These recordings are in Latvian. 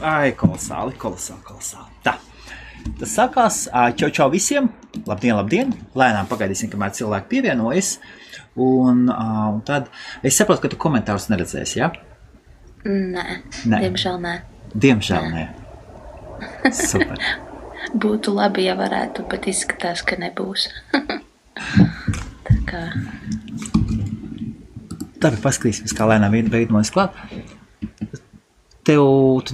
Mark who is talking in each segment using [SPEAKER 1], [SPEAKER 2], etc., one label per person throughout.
[SPEAKER 1] Ai, kolosāli. Tā. Tas sākās. Čau visiem. Labdien. Lēnām pagaidīsim, kamēr cilvēki pievienojas. Un tad es saprotu, ka tu komentārus neredzēsi, ja?
[SPEAKER 2] Nē. Diemžēl nē.
[SPEAKER 1] Super.
[SPEAKER 2] Būtu labi, ja varētu, bet izskatās, ka nebūs. Tā kā...
[SPEAKER 1] Tāpēc paskatīsimies, kā lēnām veidojas klāt. Tu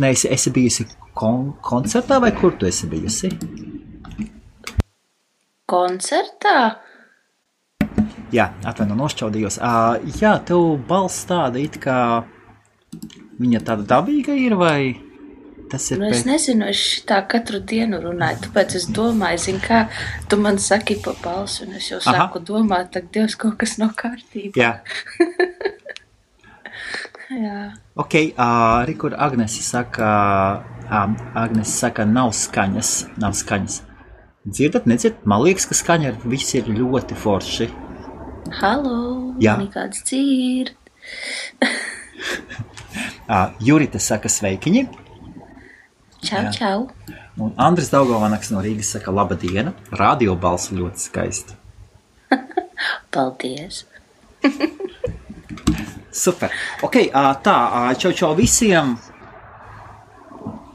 [SPEAKER 1] esi bijusi koncertā vai kur tu esi bijusi?
[SPEAKER 2] Koncertā?
[SPEAKER 1] Jā, nošķaudījos. Jā, tev balss tāda it kā viņa tāda dabīga ir vai tas ir
[SPEAKER 2] es nezinu, es šitā katru dienu runāju, tāpēc es domāju, zini kā, tu man saki pa balsu un es jau sāku domāt, tak Dievs kaut kas nav kārtībā.
[SPEAKER 1] Jā.
[SPEAKER 2] Jā.
[SPEAKER 1] Ok, kur Agnese saka, nav skaņas. Dzirdat, nedzirdat? Man liekas, ka skaņa viss ir ļoti forši.
[SPEAKER 2] Halo, mani kāds dzird.
[SPEAKER 1] Jurita saka sveikiņi.
[SPEAKER 2] Čau.
[SPEAKER 1] Un Andris Daugavanaks no Rīgas saka labadiena. Radio balss ļoti skaisti.
[SPEAKER 2] Paldies.
[SPEAKER 1] Super. Ok, čau visiem.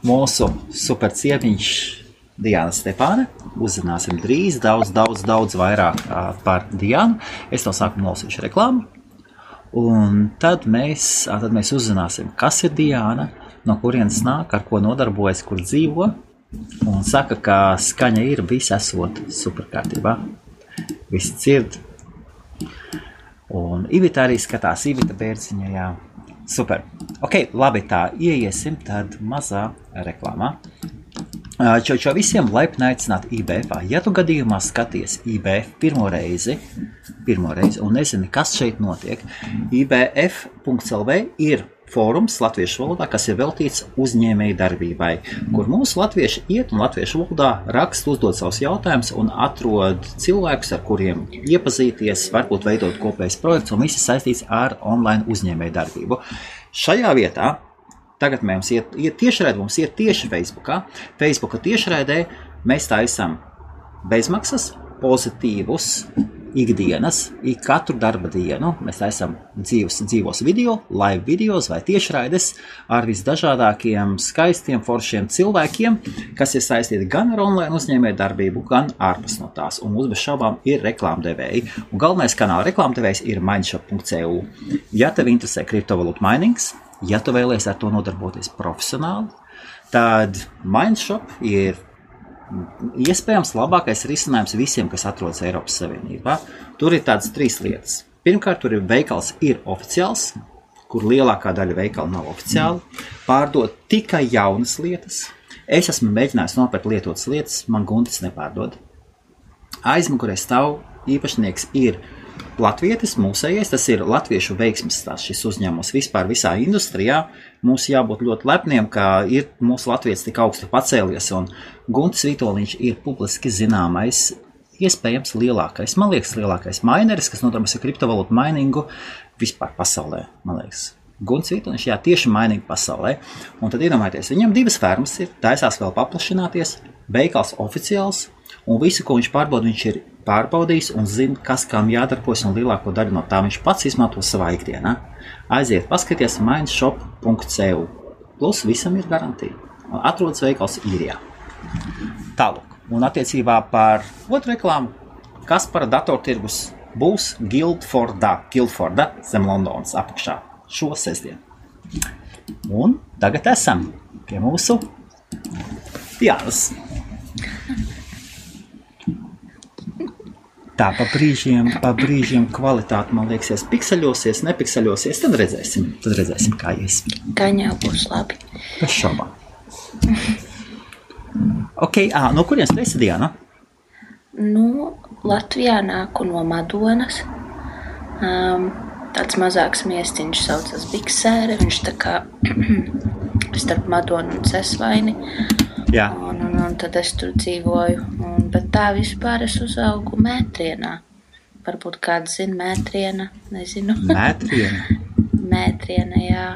[SPEAKER 1] Mūsu super ciemiņš Diana Stepāne. Uzzināsim drīz daudz vairāk par Dianu. Es no sākuma nosīšu reklāmu. Un tad mēs uzzināsim, kas ir Diana, no kurienes nāk, ar ko nodarbojas, kur dzīvo. Un saka, ka skaņa ir viss esot superkārtībā. Visi dzird. Un Ivita arī skatās, Ivita Bērziņa, jā. Super. Ok, labi, tā ieiesim tad mazā reklāmā. Čau visiem, laipni aicināt IBF. Ja tu gadījumā skaties IBF pirmo reizi un nezini, kas šeit notiek, IBF.lv ir fórums latviešu valodā, kas ir veltīts uzņēmēju darbībai, kur mūsu latvieši iet un latviešu valodā raksta, uzdod savus jautājumus un atrod cilvēkus, ar kuriem iepazīties, varbūt veidot kopējs projekts un visi saistīts ar online uzņēmēju darbību. Šajā vietā tagad mums iet tiešraidē, mums iet tieši Facebookā. Facebooka tiešraidē mēs taisam bezmaksas, pozitīvus ikdienas, katru darba dienu. Mēs taisam dzīvos video, live videos vai tiešraides ar visdažādākiem skaistiem, foršiem cilvēkiem, kas ir saistīti gan ar online uzņēmēju darbību, gan ārpus no tās. Un mums bez šaubām ir reklāmdevēji. Un galvenais kanāla reklāmdevējs ir mindshop.cu. Ja tev interesē kriptovalūtu mainings, ja tu vēlies ar to nodarboties profesionāli, tad Mindshop ir iespējams labākais risinājums visiem, kas atrodas Eiropas Savienībā. Tur ir tādas 3 lietas. Pirmkārt, tur ir veikals ir oficiāls, kur lielākā daļa veikalu nav oficiāli. Pārdod tikai jaunas lietas. Es esmu mēģinājis nopirkt lietotas lietas, man Guntis nepārdod. Aizmugurē stāv īpašnieks ir latvietis, mūsējais, tas ir latviešu veiksmes stāsts šis uzņēmums vispār visā industrijā. Mums jābūt ļoti lepniem, ka ir mūsu latvietis tik augstu pacēlies, un Guntis Vitoļiņš ir publiski zināmais, iespējams lielākais, man liekas, lielākais maineris, kas nodarbojas ar kriptovalūtu mainingu vispār pasaulē, man liekas. Guntis Vitoļiņš, jā, tieši mainingu pasaulē. Un tad iedomājieties, viņam 2 fermas ir, taisās vēl paplašināties, veikals oficiāls, un visu, ko viņš pārbauda, viņš ir pārbaudījis un zina, kas kam jādarbojas, un lielāko daļu no tā viņš pats izmanto savā ikdienā. Aiziet, paskaties mindshop.cu. Plus visam ir garantija. Atrodas veikals Īrijā. Tālāk. Un attiecībā par otru reklāmu, kas par datortirgus būs Guildforda zem Londonas apakšā šo sestdienu. Un tagad esam pie mūsu Dianas. Tā, pa brīžiem kvalitāte, man liekas, pikseļosies, nepikseļosies, tad redzēsim, kā ies.
[SPEAKER 2] Gan jau būs labi.
[SPEAKER 1] Bez šaubām. Ok, no kurienes tu esi, Diana?
[SPEAKER 2] Latvijā nāku no Madonas. Tāds mazāks miestiņš saucas Biksēre, viņš tā kā starp Madonu un Cesvaini.
[SPEAKER 1] Jā.
[SPEAKER 2] Un tad es tur dzīvoju. Bet tā vispār es uzaugu Mētrienā. Varbūt kāds zina Mētriena, nezinu.
[SPEAKER 1] Mētriena?
[SPEAKER 2] Mētriena, jā.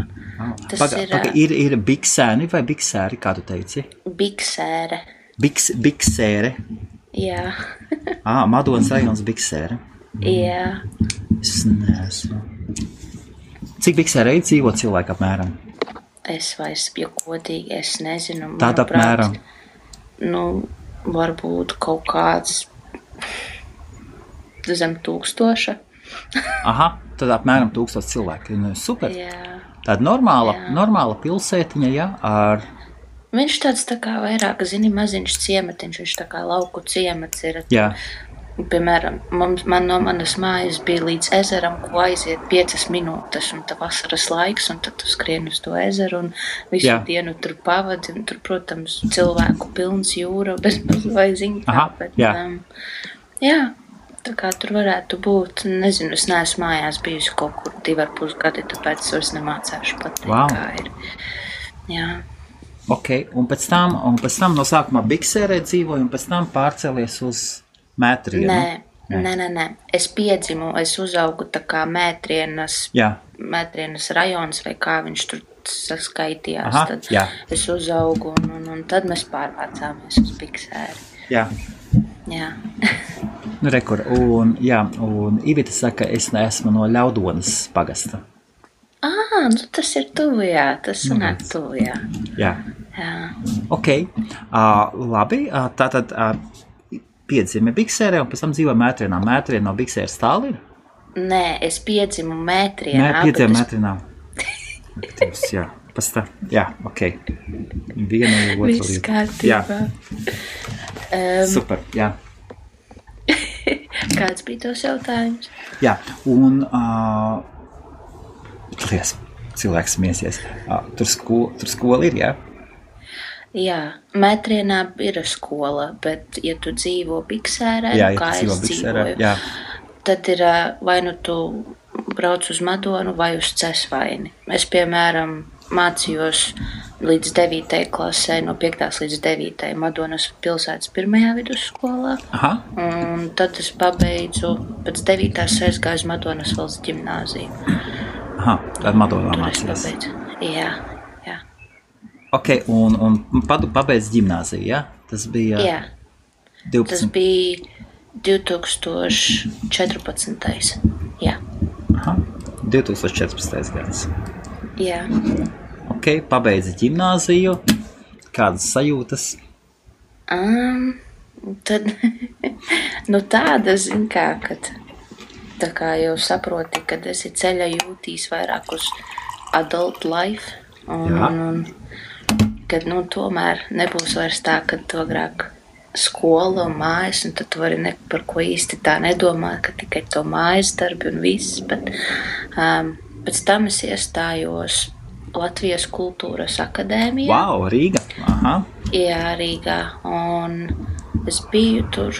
[SPEAKER 1] Ir biksēni vai biksēri, kā tu teici?
[SPEAKER 2] Biksēre.
[SPEAKER 1] Biksēre?
[SPEAKER 2] Jā.
[SPEAKER 1] Madonas rajons biksēre?
[SPEAKER 2] Jā.
[SPEAKER 1] Es neesmu. Cik biksēre dzīvo cilvēku apmēram?
[SPEAKER 2] Es vairs, ja godīgi, es nezinu.
[SPEAKER 1] Tāda apmēram?
[SPEAKER 2] Varbūt kaut kāds zem 1000.
[SPEAKER 1] Tad apmēram 1000 cilvēki. Super.
[SPEAKER 2] Jā.
[SPEAKER 1] Tāda normāla pilsētiņa, jā, ar...
[SPEAKER 2] Viņš tāds tā kā vairāk, maziņš ciematiņš, viņš tā kā lauku ciemats ir.
[SPEAKER 1] Jā.
[SPEAKER 2] Piemēram, man no manas mājas bija līdz ezeram, ko aiziet 5 minūtes, un tā vasaras laiks, un tad tu skrien uz to ezeru, un visu dienu tur pavadi, un tur, protams, cilvēku pilns jūra, bez vai ziņā, bet, jā, tā kā tur varētu būt, nezinu, es neesmu mājās bijusi kaut kur 2,5 gadi, tāpēc es vairs nemācēšu pateikt, kā ir. Jā.
[SPEAKER 1] Ok, un pēc tam no sākumā Biksērē dzīvoju, un pēc tam pārcēlies uz Mētrienu?
[SPEAKER 2] Nē. Es piedzimu, es uzaugu tā kā Mētrienas rajons, vai kā viņš tur saskaitījās. Tad es uzaugu, un tad mēs pārvācāmies uz Biksēri.
[SPEAKER 1] Jā. Rekur, un Ivita saka, es neesmu no Ļaudonas pagasta.
[SPEAKER 2] Tas ir tuvu, jā, tas sanāk tuvu, jā.
[SPEAKER 1] Jā. Ok, labi, tātad... Piedzimi Biksērē un pēc tam dzīvoja Mētrienā. Mētriena no Biksēras tālu ir?
[SPEAKER 2] Nē, es piedzimu Mētrienā.
[SPEAKER 1] Piedzimi Mētrienā. Jā, pēc tā. Jā, ok. Viena vai otra.
[SPEAKER 2] Viss kārtībā.
[SPEAKER 1] Super, jā.
[SPEAKER 2] Kāds bija tos jautājums?
[SPEAKER 1] Jā, un cilvēks smiesies. Tur skola ir, jā?
[SPEAKER 2] Jā, Mētrienā ir skola, bet, ja tu dzīvo Biksērē, kā es dzīvoju, tad ir vai nu tu brauc uz Madonu vai uz Cesvaini. Es, piemēram, mācījos līdz 9. klasē, no 5. līdz 9. Madonas pilsētas 1. vidusskolā. Un tad es pabeidzu, pēc 9. aizgāju uz Madonas valsts ģimnāziju.
[SPEAKER 1] Tad Madonā mācījās.
[SPEAKER 2] Jā.
[SPEAKER 1] Ok, un pabeidz ģimnāziju, jā? Tas bija...
[SPEAKER 2] Jā.
[SPEAKER 1] 12.
[SPEAKER 2] Tas bija 2014. Jā.
[SPEAKER 1] 2014. gads.
[SPEAKER 2] Jā.
[SPEAKER 1] Ok, pabeidz ģimnāziju. Kādas sajūtas?
[SPEAKER 2] Tad, tāda, kad tā kā jau saproti, kad esi ceļa jūtīs vairāk uz adult life. Un kad, tomēr nebūs vairs tā, kad tu agrāk skola un mājas, un tad tu vari par ko īsti tā nedomāt, ka tikai to mājas darbi un viss, bet pēc tam es iestājos Latvijas kultūras akadēmijā.
[SPEAKER 1] Wow, Rīga!
[SPEAKER 2] Jā, Rīgā, un es biju tur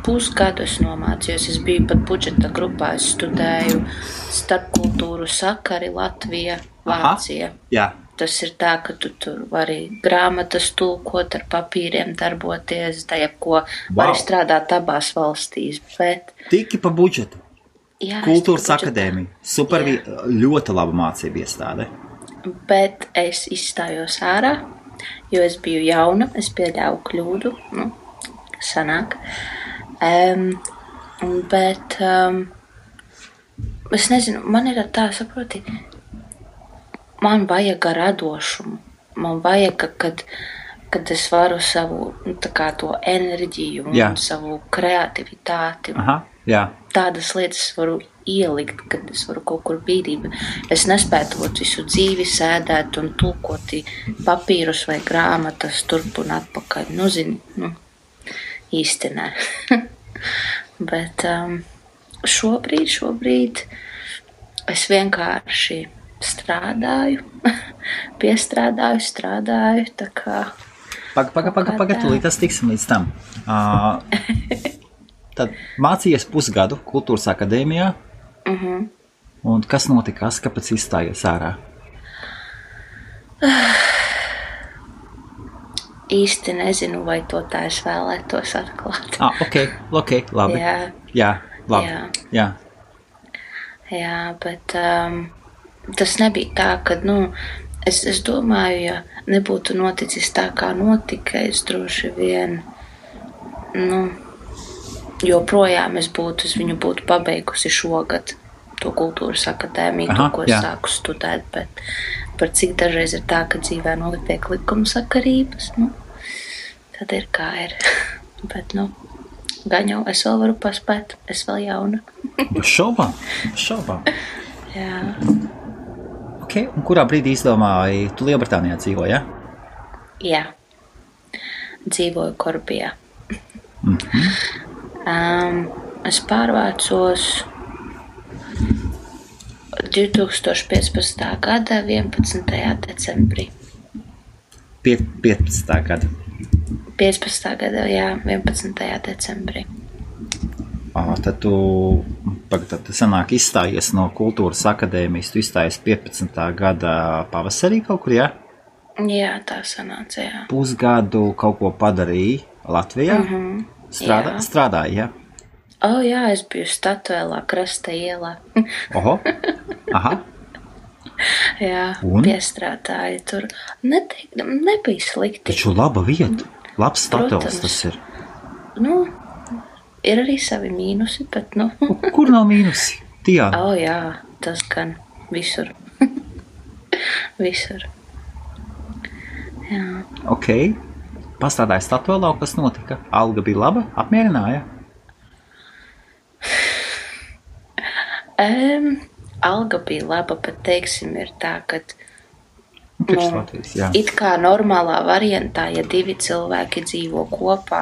[SPEAKER 2] pusgadu, es nomācījos, es biju pat budžeta grupā, es studēju starpkultūru sakari Latvija, Vācija.
[SPEAKER 1] Jā.
[SPEAKER 2] Tas ir tā, ka tu tur vari grāmatas tulkot, ar papīriem darboties, ko vari strādāt abās valstīs. Bet...
[SPEAKER 1] Tiki pa budžetu.
[SPEAKER 2] Jā,
[SPEAKER 1] Kultūras akadēmija. Super, ļoti laba mācība iestāde.
[SPEAKER 2] Bet es izstājos ārā, jo es biju jauna, es pieļāvu kļūdu, sanāk. Bet es nezinu, man ir tā, saproti, man vajag radošumu. Man vajag, kad es varu savu to enerģiju un savu kreativitāti. Tādas lietas varu ielikt, kad es varu kaut kur bīdīt. Es nespētu visu dzīvi sēdēt un tulkot papīrus vai grāmatas turp un atpakaļ. Īsti nē. Bet šobrīd es vienkārši strādāju, strādāju, tā kā...
[SPEAKER 1] Tūlīt tas tiksim līdz tam. Tad mācījies pusgadu kultūras akadēmijā, un kas notikās, kāpēc izstājies ārā?
[SPEAKER 2] Īsti nezinu, vai to tā es vēlētos atklāt.
[SPEAKER 1] Ok, labi. Jā, labi. Jā,
[SPEAKER 2] bet tas nebija tā, ka, es domāju, ja nebūtu noticis tā, kā notika, es droši vien, joprojām es viņu būtu pabeigusi šogad to kultūras akadēmiju, ko es sāku studēt, bet par cik dažreiz ir tā, ka dzīvē notiek likumsakarības, tad ir kā ir. Bet, gan jau es vēl varu paspēt, es vēl jauna.
[SPEAKER 1] Bez šaubām.
[SPEAKER 2] Jā.
[SPEAKER 1] Ok, un kurā brīdī izdomāji, tu Lielbritānijā dzīvo, ja?
[SPEAKER 2] Jā. Dzīvoju Korbijā. Es pārvācos 2015. gada 11. decembrī.
[SPEAKER 1] 15. gada?
[SPEAKER 2] 15. gada, jā, 11. decembrī.
[SPEAKER 1] Tad tu sanāk izstājies no kultūras akadēmijas, tu izstājies 15. gada pavasarī kaut kur, jā?
[SPEAKER 2] Jā, tā sanāca, jā.
[SPEAKER 1] Pusgadu kaut ko padarīji Latvijā? Strādāji, jā?
[SPEAKER 2] Jā, es biju Statuēlā, Krasta ielā.
[SPEAKER 1] Oho, aha.
[SPEAKER 2] Jā, piestrādāju tur. Nebija slikti.
[SPEAKER 1] Taču laba vieta, labs Statuēls tas ir.
[SPEAKER 2] Ir arī savi mīnusi, bet,
[SPEAKER 1] Kur nav mīnusi? Tijā?
[SPEAKER 2] Jā, tas gan visur. Visur. Jā.
[SPEAKER 1] Ok. Pastrādāji Statuēlā, kas notika? Alga bija laba, apmierināja?
[SPEAKER 2] Alga bija laba, bet teiksim ir tā, ka
[SPEAKER 1] Latvijas,
[SPEAKER 2] it kā normālā variantā, ja 2 cilvēki dzīvo kopā,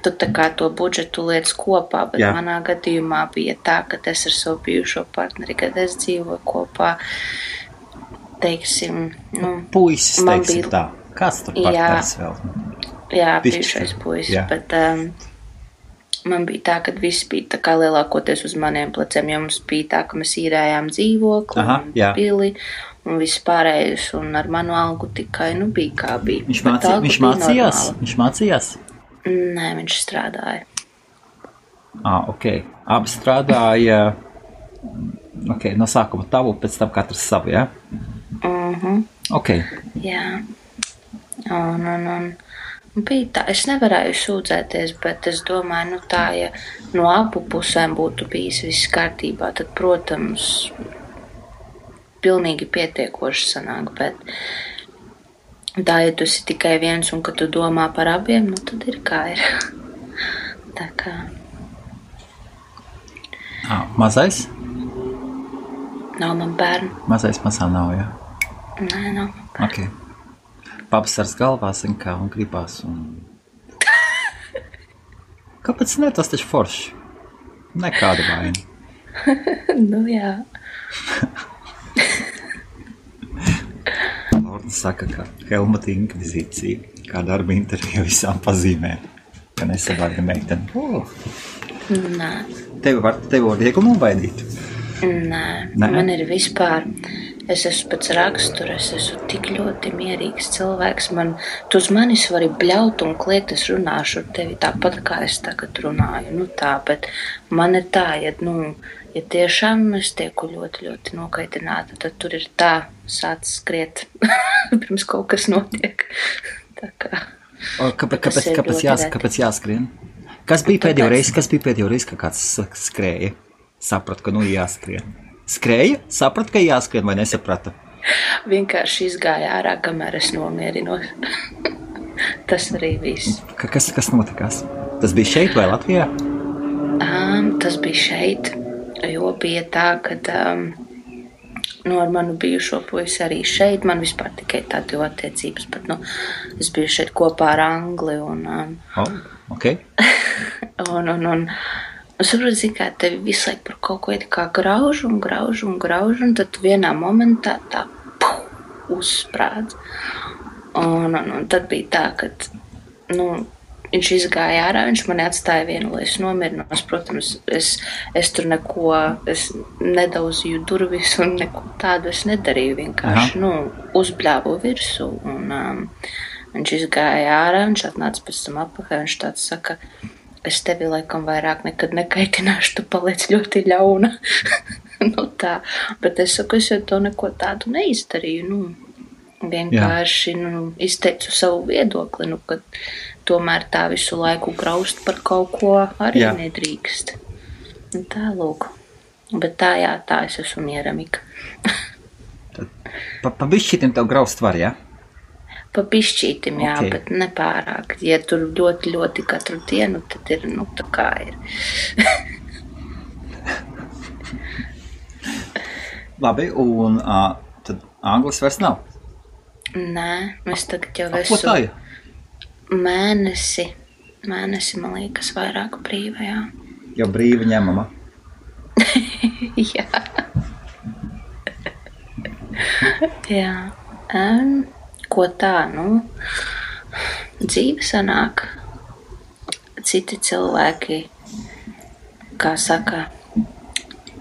[SPEAKER 2] tu tā kā to budžetu liec kopā, bet manā gadījumā bija tā, ka es ar savu bijušo partneri, kad es dzīvoju kopā, teiksim,
[SPEAKER 1] puisis, teiksim tā. Kāds tur partneris vēl?
[SPEAKER 2] Jā, bijušais puisis, bet man bija tā, ka viss bija tā kā lielākoties uz maniem pleciem, jo mums bija tā, ka mēs īrējām dzīvokli un pili un viss pārējais, un ar manu algu tikai, bija kā bija.
[SPEAKER 1] Viņš mācījās?
[SPEAKER 2] Nē, viņš strādāja.
[SPEAKER 1] Ok. Abi strādāja, no sākuma tavu, pēc tam katrs savu, jā? Ok.
[SPEAKER 2] Jā. Un bija tā, es nevarēju sūdzēties, bet es domāju, tā, ja no abu pusēm būtu bijis viss kārtībā, tad, protams, pilnīgi pietiekoši sanāk, bet tā, ja tu esi tikai viens un ka tu domā par abiem, tad ir kā ir. Tā kā.
[SPEAKER 1] Mazais?
[SPEAKER 2] Nav man bērnu.
[SPEAKER 1] Mazais mazā nav, jā?
[SPEAKER 2] Nē, nav man bērnu.
[SPEAKER 1] Ok. Pavasars galvā, kā, un gribās, un... Kāpēc ne? Tas taču forši. Nekāda vaina.
[SPEAKER 2] Jā.
[SPEAKER 1] Lorda saka, ka Helmuta inkvizīcija, kā darba intervija visām pazīmē, ka nesavārga meiteni.
[SPEAKER 2] Nē.
[SPEAKER 1] Tevi var viegli nobaidīt?
[SPEAKER 2] Nē, man ir vispār... Es esmu pēc rakstura, es esmu tik ļoti mierīgs cilvēks. Tu uz manis vari bļaut un kliegt, es runāšu ar tevi tāpat, kā es tagad runāju. Bet man ir tā, ja tiešām es tieku ļoti, ļoti nokaitināta, tad tur ir tā sāc skriet, pirms kaut kas notiek. Tā kā.
[SPEAKER 1] Kāpēc jāskrien? Kas bija pēdējo reizi, ka kāds skrēja? Sapratu, ka jāskrien. Skrēja? Sapratu, ka jāskrien vai nesaprata?
[SPEAKER 2] Vienkārši izgāja ārā, kamēr es nomierinos. Tas arī viss.
[SPEAKER 1] Kas notikās? Tas bija šeit vai Latvijā?
[SPEAKER 2] Tas bija šeit, jo bija tā, ka ar manu bijušo puisi arī šeit. Man vispār tikai tādi attiecības, bet es biju šeit kopā ar Angli.
[SPEAKER 1] Ok.
[SPEAKER 2] Es saprotu, kā tevi visu laiku par kaut ko kā grauž, un tad vienā momentā tā uzsprādz. Un tad bija tā, ka viņš izgāja ārā, viņš mani atstāja vienu, lai es nomirinos. Protams, es tur es nedauzīju durvis un neko tādu es nedarīju. Vienkārši, uzbļāvu virsū. Un viņš izgāja ārā, viņš atnāca pēc tam atpakaļ, viņš tāds saka... Es tevi laikam vairāk nekad nekaitināšu, tu paliec ļoti ļauna. Nu tā, bet es saku, es jau to neko tādu neizdarīju, vienkārši, izteicu savu viedokli, ka tomēr tā visu laiku graust par kaut ko arī nedrīkst. Tā lūk. Bet tā es esmu mieramika.
[SPEAKER 1] Pa bišķītim tev graust var, jā?
[SPEAKER 2] Pa bišķītim, jā, bet nepārāk. Ja tur ļoti, ļoti katru dienu, tad ir, tā kā ir.
[SPEAKER 1] Labi, un tad anglis vairs nav?
[SPEAKER 2] Nē, es tagad jau
[SPEAKER 1] Ko tā ir?
[SPEAKER 2] Mēnesi, man liekas, vairāk brīva, jā.
[SPEAKER 1] Jau brīva ņemama?
[SPEAKER 2] Jā. Jā. Ko tā, dzīve sanāk. Citi cilvēki, kā saka,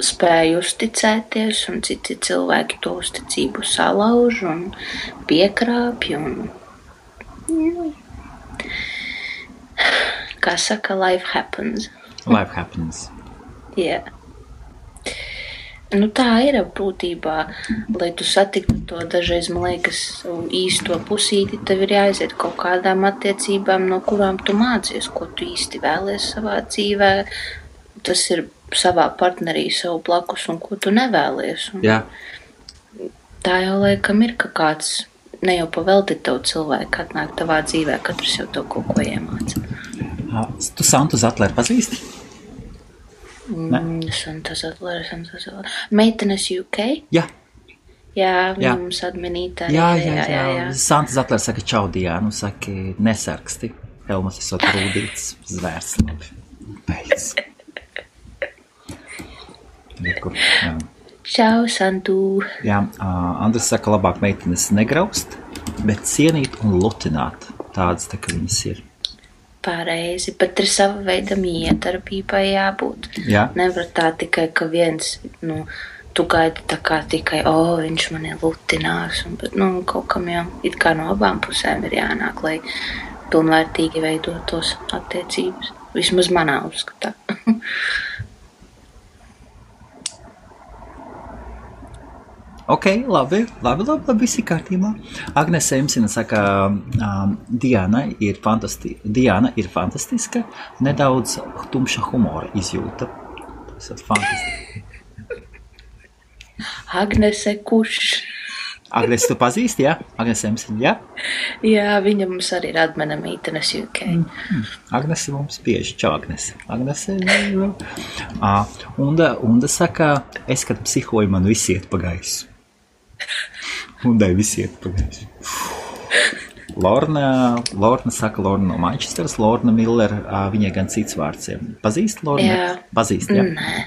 [SPEAKER 2] spēj uzticēties, un citi cilvēki to uzticību salauž un piekrāpj, un kā saka, life happens.
[SPEAKER 1] Life happens.
[SPEAKER 2] Jā. Tā ir būtībā, lai tu satiktu to dažreiz, man liekas, īsto pusīti, tev ir jāaiziet kaut kādām attiecībām, no kurām tu mācies, ko tu īsti vēlies savā dzīvē. Tas ir savā partnerī, savu blakus, un ko tu nevēlies.
[SPEAKER 1] Jā.
[SPEAKER 2] Tā jau laikam ir, ka kāds ne jau pavelti tev cilvēku atnāk tavā dzīvē, katrs jau tev kaut ko iemāca.
[SPEAKER 1] Tu Santu Zatleru pazīsti?
[SPEAKER 2] Santa Zatlere. Meitenes UK?
[SPEAKER 1] Jā.
[SPEAKER 2] Jā, viņa mums adminītā.
[SPEAKER 1] Jā. Santa Zatlere saka čau Diānu, saka nesarksti. Helmas esot rūdīts zvērs. Beidz.
[SPEAKER 2] Čau, Santu.
[SPEAKER 1] Jā, Andris saka, labāk meitenes negraust, bet cienīt un lutināt. Tādas tā, ka viņas ir.
[SPEAKER 2] Pareizi, bet ir sava veida miedarbībai jābūt.
[SPEAKER 1] Jā.
[SPEAKER 2] Nevar tā tikai, ka viens, tu gaidi tā kā tikai, viņš mani lutinās, bet, kaut kam jau it kā no abām pusēm ir jānāk, lai pilnvērtīgi veidotos attiecības. Vismaz manā uzskatā.
[SPEAKER 1] Ok, labi, visi kārtībā. Agnese Emsina saka, Diana ir fantastiska, nedaudz tumša humora izjūta. Tas ir fantastiski.
[SPEAKER 2] Agnese kurš?
[SPEAKER 1] Agnese tu pazīsti, jā? Agnese Emsina, jā?
[SPEAKER 2] Jā, viņa mums arī ir admina meitenes UK.
[SPEAKER 1] Agnese mums bieži, čau Agnese. Agnese, Unda saka, es, kad psihoju, man visi iet pa gaisu. Undai visi iet pa gaisu. Lorna saka, Lorna no Manchesteras, Lorna Miller, viņai gan cits vārds. Pazīst Lorna?
[SPEAKER 2] Jā.
[SPEAKER 1] Pazīst, jā?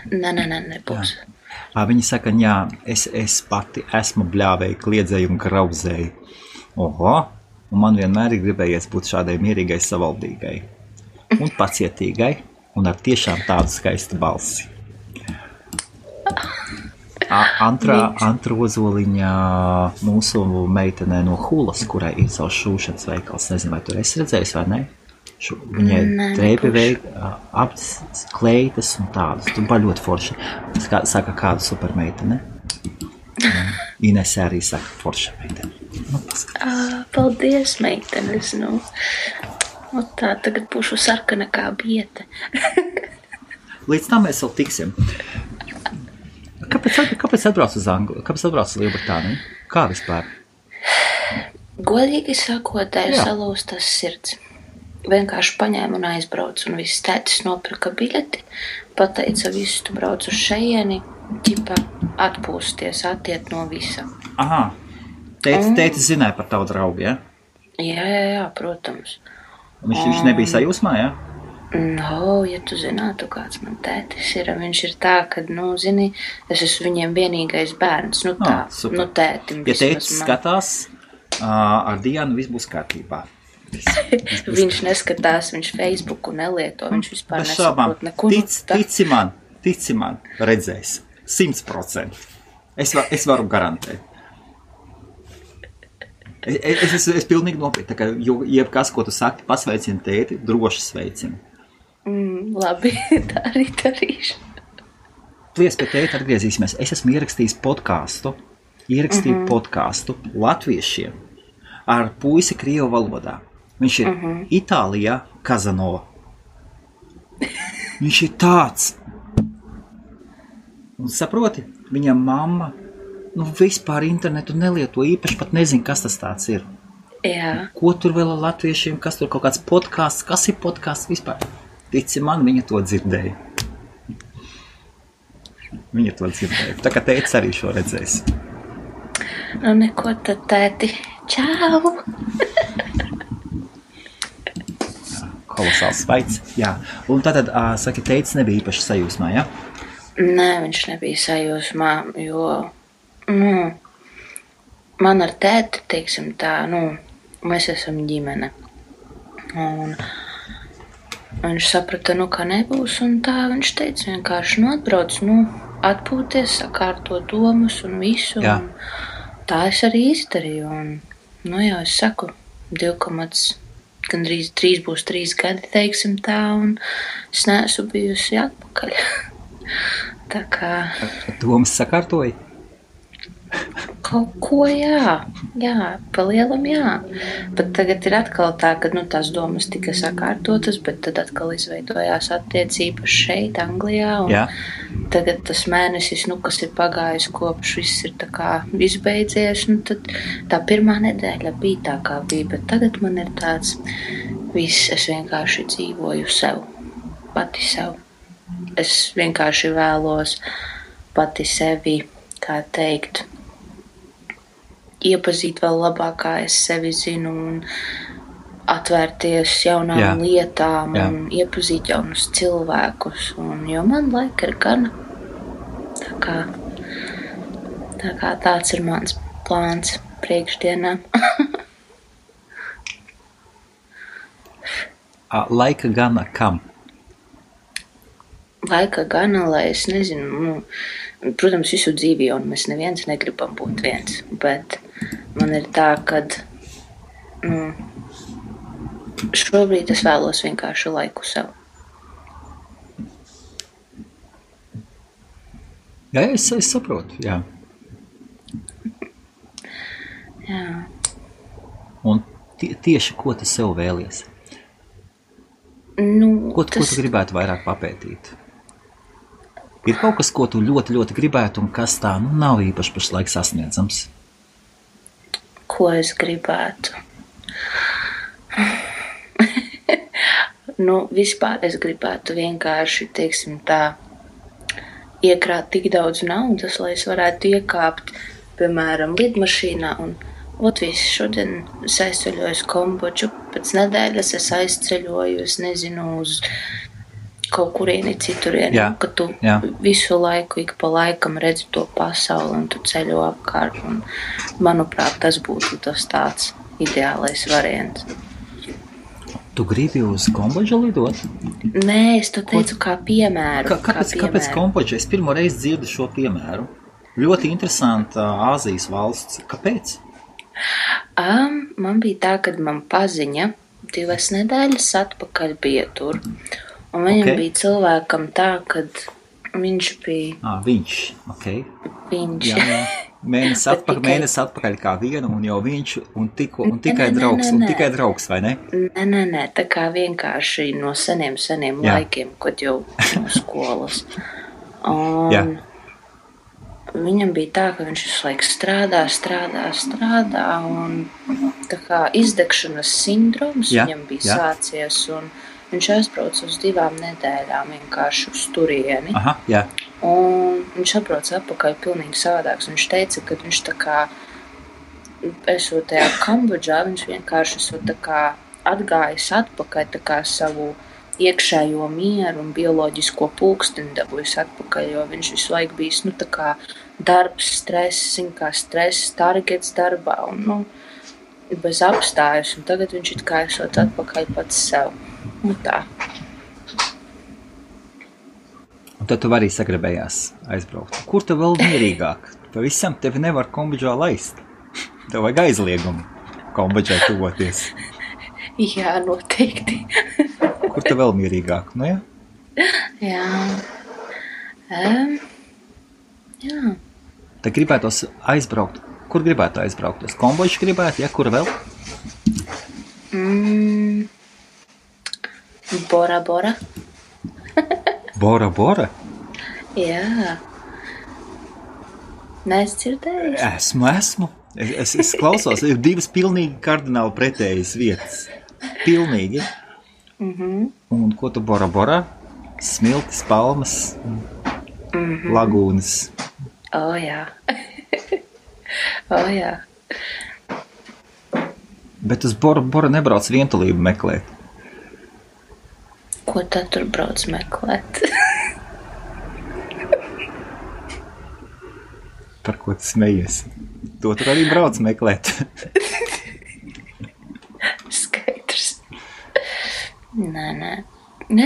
[SPEAKER 2] Nē, nebūs.
[SPEAKER 1] Viņa saka, jā, es pati esmu bļāvēja, kliedzēju un grauzēju. Oho, un man vienmēr ir gribējies būt šādai mierīgai, savaldīgai un pacietīgai un ar tiešām tādu skaistu balsi. Antra Ozoliņa mūsu meitenē no Hulas, kurai ir savs šūšanas veikals. Nezinu, vai tur esi redzējis vai ne? Viņai drēbi aptas, kleitas un tādas. Tu ļoti forša. Saka kādu supermeitene. Inese arī saka forša meitene.
[SPEAKER 2] Paldies, meitenes. Tā tagad būšu sarkana kā biete.
[SPEAKER 1] Līdz tam mēs vēl tiksim. Kāpēc atbrauc uz Angliju? Kāpēc atbrauc uz Lielbritāniju? Kā vispār?
[SPEAKER 2] Godīgi sakot, salūstas sirds. Vienkārši paņēmu un aizbraucu, un viss tētis nopirka biļeti, pateica visu, tu brauc uz šeieni, ķipa atpūsties, attiet no visa.
[SPEAKER 1] Aha, tētis zināja par tavu draugu, ja?
[SPEAKER 2] Jā, protams.
[SPEAKER 1] Viņš nebija sajūsmā, ja?
[SPEAKER 2] Ja tu zinātu, kāds man tētis ir, viņš ir tā, kad, zini, es esmu viņiem vienīgais bērns, tētim.
[SPEAKER 1] Ja tētis skatās, ar Dianu viss būs kārtībā.
[SPEAKER 2] Viņš neskatās, viņš Facebooku nelieto, viņš vispār nesaprot neko.
[SPEAKER 1] Tici man, redzēs, 100%. Es varu garantēt. Es pilnīgi nopietni, tā kā jebkas, ko tu saki, pasveicini tēti, droši sveicini.
[SPEAKER 2] Labi, tā arī darīšu.
[SPEAKER 1] Plies pie tēta atgriezīsimies. Es esmu ierakstījis podkāstu latviešiem ar puisi krievu valodā. Viņš ir Itālijā, Kazanova. Viņš ir tāds. Un saproti, viņa mamma vispār internetu nelieto, īpaši pat nezinu, kas tas tāds ir.
[SPEAKER 2] Jā.
[SPEAKER 1] Ko tur vēl ar latviešiem, kas tur kaut kāds podkāsts, kas ir podkāsts vispār? Tici man, viņa to dzirdēja. Viņa to dzirdēja. Tā kā tētis arī šo redzēs.
[SPEAKER 2] Nu, neko tad, tēti. Čau!
[SPEAKER 1] Kolosāls veids. Jā. Un tātad, saki, tētis nebija īpaši sajūsmā, ja?
[SPEAKER 2] Nē, viņš nebija sajūsmā, jo, man ar tēti, teiksim tā, mēs esam ģimene. Un viņš saprata, ka nebūs, un tā viņš teica vienkārši, atbrauc, atpūties, sakārtot domas un visu.
[SPEAKER 1] Jā.
[SPEAKER 2] Un tā es arī izdarīju, un, jau es saku, gandrīz 3 būs 3 gadi, teiksim tā, un es neesmu bijusi atpakaļ. Tā kā...
[SPEAKER 1] Domas sakārtoja?
[SPEAKER 2] Kaut ko, jā, palielam, jā. Bet tagad ir atkal tā, ka tās domas tika sakārtotas, bet tad atkal izveidojās attiecības šeit, Anglijā. Un tagad tas mēnesis, kas ir pagājis kopš viss ir tā kā izbeidzies, tad tā pirmā nedēļa bija tā kā bija, bet tagad man ir tāds viss, es vienkārši dzīvoju sev, pati sev. Es vienkārši vēlos pati sevi, kā teikt, iepazīt vēl labāk, kā es sevi zinu, un atvērties jaunām lietām, un iepazīt jaunus cilvēkus, jo man laika ir gana. Tā kā tāds ir mans plāns priekšdienām.
[SPEAKER 1] Laika gana kam?
[SPEAKER 2] Laika gana, lai es nezinu, protams, visu dzīvi jau mēs neviens negribam būt viens, bet man ir tā, kad šobrīd es vēlos vienkārši laiku sev.
[SPEAKER 1] Jā, es saprotu, jā.
[SPEAKER 2] Jā.
[SPEAKER 1] Un tieši ko tu sev vēlies? Ko tu gribētu vairāk papētīt? Ir kaut kas, ko tu ļoti, ļoti gribētu, un kas tā nav īpaši pašlaik sasniedzams?
[SPEAKER 2] Ko es gribētu? Vispār es gribētu vienkārši, teiksim tā, iekrāt tik daudz naudas, lai es varētu iekāpt, piemēram, lidmašīnā un viss šodien es aizceļoju uz Kambodžu, pēc nedēļas es aizceļoju, es nezinu, uz kaut kurieni citurieni, ka tu visu laiku, ik pa laikam redzi to pasauli un tu ceļo apkārt. Un, manuprāt, tas būtu tas tāds ideālais variants.
[SPEAKER 1] Tu gribi uz Kambodžu lidot?
[SPEAKER 2] Nē, es to teicu kā piemēru.
[SPEAKER 1] Kāpēc Kambodža? Es pirmo reizi dzirdu šo piemēru. Ļoti interesanta Āzijas valsts. Kāpēc?
[SPEAKER 2] Man bija tā, kad man paziņa 2 nedēļas atpakaļ bija tur. Un viņam bija cilvēkam tā, kad viņš bija...
[SPEAKER 1] Viņš,
[SPEAKER 2] Viņš.
[SPEAKER 1] Jā. Mēnesi atpakaļ kā vienu, un jau viņš, un tikai draugs, vai ne?
[SPEAKER 2] Nē, tā kā vienkārši no seniem laikiem, kad jau no skolas. Un viņam bija tā, ka viņš visu laiku strādā, un tā kā izdegšanas sindroms viņam bija sācies, un viņš aizbrauca uz 2 nedēļām vienkārši uz turieni. Un viņš atbrauca atpakaļ pilnīgi savādāks. Viņš teica, ka viņš tā kā, esot tajā Kambodžā, viņš vienkārši esot tā kā atgājis atpakaļ tā kā savu iekšējo mieru un bioloģisko pulksteni dabūjis atpakaļ, jo viņš visu laiku bijis, tā kā darbs, stress, targets darbā un, bez apstājas. Un tagad viņš it kā esot atpakaļ pats sev. Tā.
[SPEAKER 1] Un tad tu arī sagribējās aizbraukt. Kur tu vēl mierīgāk? Pavisam tevi nevar Kambodžā laist. Tev vajag aizliegumu Kambodžai tuvoties.
[SPEAKER 2] Jā, noteikti.
[SPEAKER 1] Kur tu vēl mierīgāk? Jā?
[SPEAKER 2] Jā. Jā.
[SPEAKER 1] Tad gribētos aizbraukt. Kur gribētu aizbraukt? Uz Kambodžu gribētu, ja? Kur vēl?
[SPEAKER 2] Bora Bora.
[SPEAKER 1] Bora Bora?
[SPEAKER 2] Jā. Neesi dzirdējis?
[SPEAKER 1] Esmu. Es klausos, ir divas pilnīgi kardināli pretējas vietas. Pilnīgi. Un ko tu Bora Bora? Smiltis, palmas, lagūnas.
[SPEAKER 2] Jā. Jā.
[SPEAKER 1] Bet uz Bora Bora nebrauc vientulību meklēt.
[SPEAKER 2] Ko tad tur brauc meklēt?
[SPEAKER 1] Par ko tu smejies? To tur arī brauc meklēt.
[SPEAKER 2] Skaidrs. Nē.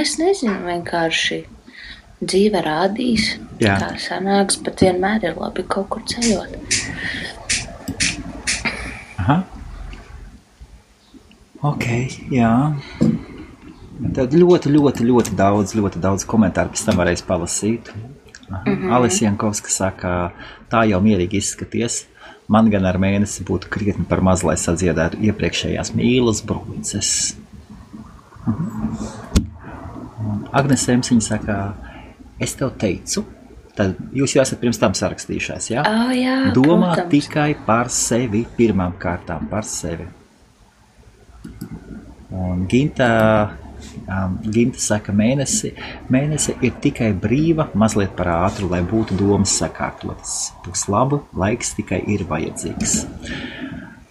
[SPEAKER 2] Es nezinu, vienkārši dzīve rādīs, kā sanāks, bet vienmēr ir labi kaut kur ceļot.
[SPEAKER 1] Aha. Ok, jā. Tad ļoti daudz komentāru pēc tam varēs palasīt. Alis Jankovska saka, tā jau mierīgi izskaties. Man gan ar mēnesi būtu krietni par maz, lai sadziedētu iepriekšējās mīlas brūces. Agnes Emsiņa saka, es tev teicu, tad jūs jau esat pirms tam sarakstījušās, jā?
[SPEAKER 2] Jā,
[SPEAKER 1] Domā
[SPEAKER 2] protams.
[SPEAKER 1] tikai par sevi, pirmām kārtām par sevi. Un Ginta saka, mēnesi ir tikai brīva, mazliet par ātru, lai būtu domas sakārtotas. Būs labu, laiks tikai ir vajadzīgs.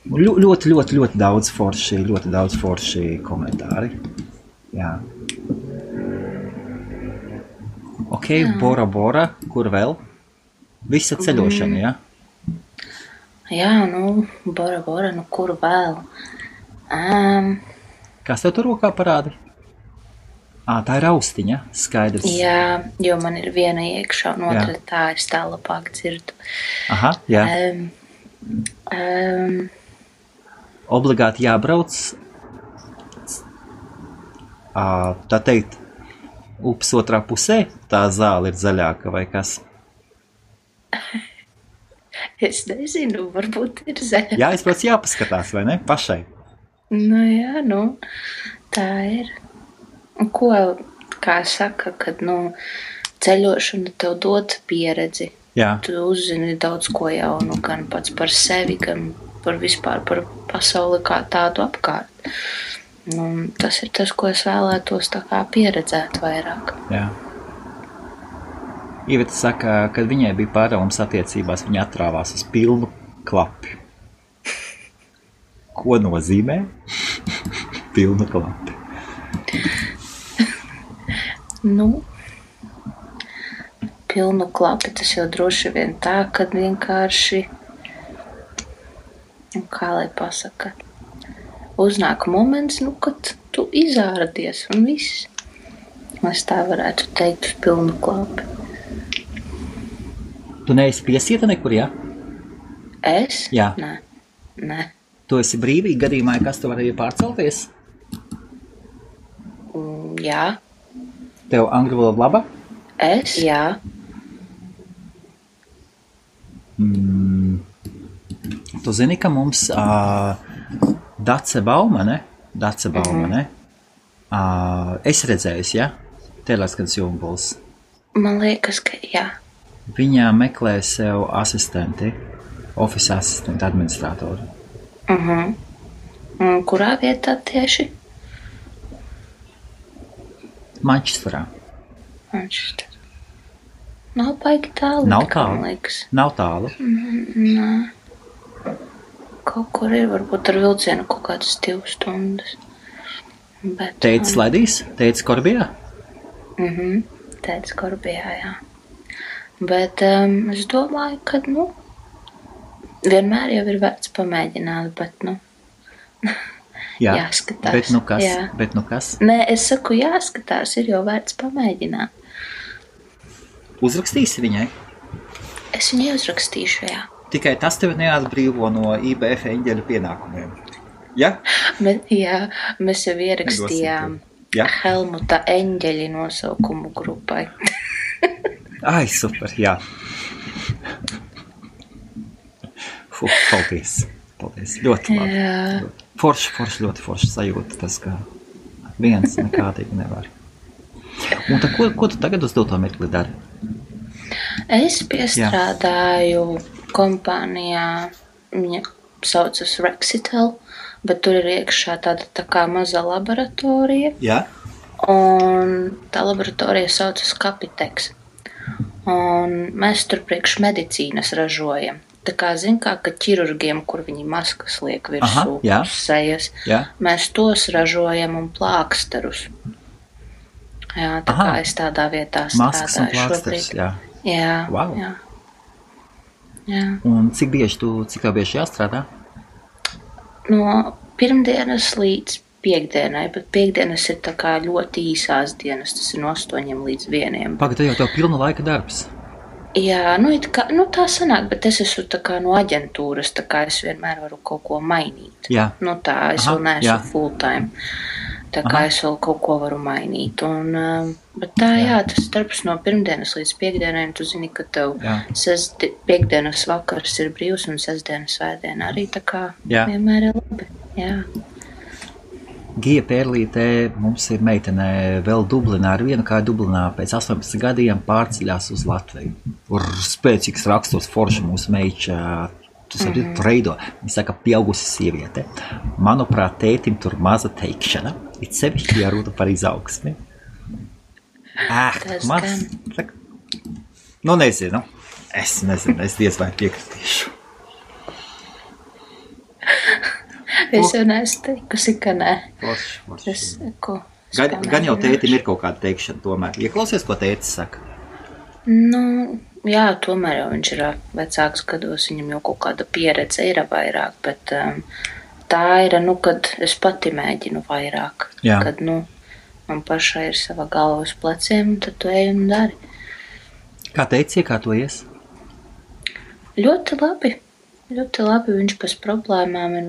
[SPEAKER 1] Ļoti daudz forši komentāri. Jā. Ok, Bora Bora, kur vēl? Visa ceļošana, jā?
[SPEAKER 2] Jā, Bora Bora, kur vēl?
[SPEAKER 1] Kas tev tur rokā parāda? Tā ir austiņa, skaidrs.
[SPEAKER 2] Jā, jo man ir viena iekšā un otra tā, es tā labāk dzirdu.
[SPEAKER 1] Aha, jā. Obligāti jābrauc, tā teikt, upes otrā pusē, tā zāle ir zaļāka vai kas?
[SPEAKER 2] Es nezinu, varbūt ir zaļāka.
[SPEAKER 1] Jā, es pēc jāpaskatās, vai ne? Pašai.
[SPEAKER 2] Jā, tā ir. Ko, kā saka, kad, ceļošana tev dod pieredzi.
[SPEAKER 1] Jā.
[SPEAKER 2] Tu uzzini daudz ko jaunu, gan pats par sevi, gan par vispār par pasauli kā tādu apkārt. Tas ir tas, ko es vēlētos tā kā pieredzēt vairāk.
[SPEAKER 1] Jā. Iveta saka, kad viņai bija pārāvums attiecībās, viņa atrāvās uz pilnu klapi. Ko nozīmē? Pilnu klapi.
[SPEAKER 2] Pilnu klapi tas jau droši vien tā, kad vienkārši, kā lai pasaka, uznāk moments, kad tu izāradies un viss. Es tā varētu teikt uz pilnu klapi.
[SPEAKER 1] Tu neesi piesieta nekur, jā?
[SPEAKER 2] Es?
[SPEAKER 1] Jā.
[SPEAKER 2] Nē.
[SPEAKER 1] Tu esi brīvīgi gadījumā, kas tu varēja pārcelties?
[SPEAKER 2] Jā.
[SPEAKER 1] Tev angļu valoda laba?
[SPEAKER 2] Es? Jā.
[SPEAKER 1] Tu zini, ka mums Dace Baumane, es redzējusi, ja? Teleskans Jumbuls.
[SPEAKER 2] Man liekas, ka jā.
[SPEAKER 1] Viņa meklē sev asistenti, office asistenti, administratoru.
[SPEAKER 2] Kurā vietā tieši?
[SPEAKER 1] Manchesterā.
[SPEAKER 2] Nav baigi tālu.
[SPEAKER 1] Nav tālu.
[SPEAKER 2] Man liekas.
[SPEAKER 1] Nav tālu.
[SPEAKER 2] Nē. Kaut kur ir, varbūt ar vilcienu kaut kādas 2 stundas. Bet,
[SPEAKER 1] Teicis Ledijs? Teicis Korbijā?
[SPEAKER 2] Teicis Korbijā, jā. Bet es domāju, ka, vienmēr jau ir vērts pamēģināt, bet,
[SPEAKER 1] Jā,
[SPEAKER 2] jāskatās.
[SPEAKER 1] bet nu kas?
[SPEAKER 2] Jā.
[SPEAKER 1] Bet nu kas?
[SPEAKER 2] Nē, es saku, jāskatās, ir jau vērts pamēģināt.
[SPEAKER 1] Uzrakstīsi viņai?
[SPEAKER 2] Es viņai uzrakstīšu, jā.
[SPEAKER 1] Tikai tas tevi neatbrīvo no IBF eņģeļu pienākumiem. Ja?
[SPEAKER 2] Bet, jā, mēs jau ierakstījām
[SPEAKER 1] Jā.
[SPEAKER 2] Helmuta eņģeļi nosaukumu grupai.
[SPEAKER 1] Ai, super, jā. Paldies. Ļoti labi. Forši, ļoti forši sajūta tas, ka viens nekādīgi nevar. Un tad, ko tu tagad uz doto mirkli dari?
[SPEAKER 2] Es piestrādāju kompānijā, viņa saucas Rexitel, bet tur ir iekšā tāda tā kā maza laboratorija.
[SPEAKER 1] Jā.
[SPEAKER 2] Un tā laboratorija saucas Capitex. Un mēs tur priekš medicīnas ražojam. Tā kā ka ķirurgiem, kur viņi maskas liek virsū sejas, mēs tos ražojam un plāksterus. Jā, tā kā es tādā vietā strādāju šobrīd. Jā.
[SPEAKER 1] Wow.
[SPEAKER 2] Jā.
[SPEAKER 1] Un cik bieži jāstrādā?
[SPEAKER 2] No pirmdienas līdz piekdienai, bet piekdienas ir tā kā ļoti īsās dienas, tas ir no 8 līdz 1.
[SPEAKER 1] Pagad, jau tev pilna laika darbs.
[SPEAKER 2] Jā, tā sanāk, bet es esmu tā kā no aģentūras, tā kā es vienmēr varu kaut ko mainīt.
[SPEAKER 1] Jā.
[SPEAKER 2] Tā, es vēl neesmu full time, tā kā es vēl kaut ko varu mainīt. Bet tā, tas darbs no pirmdienas līdz piekdienai, tu zini, ka tev piekdienas vakars ir brīvs un sestdienas svētdiena arī tā kā vienmēr ir labi. Jā.
[SPEAKER 1] Gija Pērlītē mums ir meitene vēl Dublinā, ar vienu kāju Dublinā pēc 18 gadiem pārceļās uz Latviju. Spēcīgs raksturs forša mūsu meiča, tu saproti, reido. Viņa saka, pieaugusi sieviete. Manuprāt, tētim tur maza teikšana, it sevišķi jārūta par izaugsmi. Nezinu. Es diez vai piekritīšu.
[SPEAKER 2] Es jau neesmu teikusi, ka nē.
[SPEAKER 1] Gan jau tētim ir kaut kāda teikšana tomēr. Ieklausies, ko tētis saka?
[SPEAKER 2] Jā, tomēr jau viņš ir vecāks gados, viņam jau kaut kāda pieredze ir vairāk, bet tā ir, kad es pati mēģinu vairāk.
[SPEAKER 1] Jā.
[SPEAKER 2] Kad, man pašai ir sava galva uz pleciem, tad tu ej un dari.
[SPEAKER 1] Kā teici, iekārtojies?
[SPEAKER 2] Ļoti labi, viņš bez problēmām, un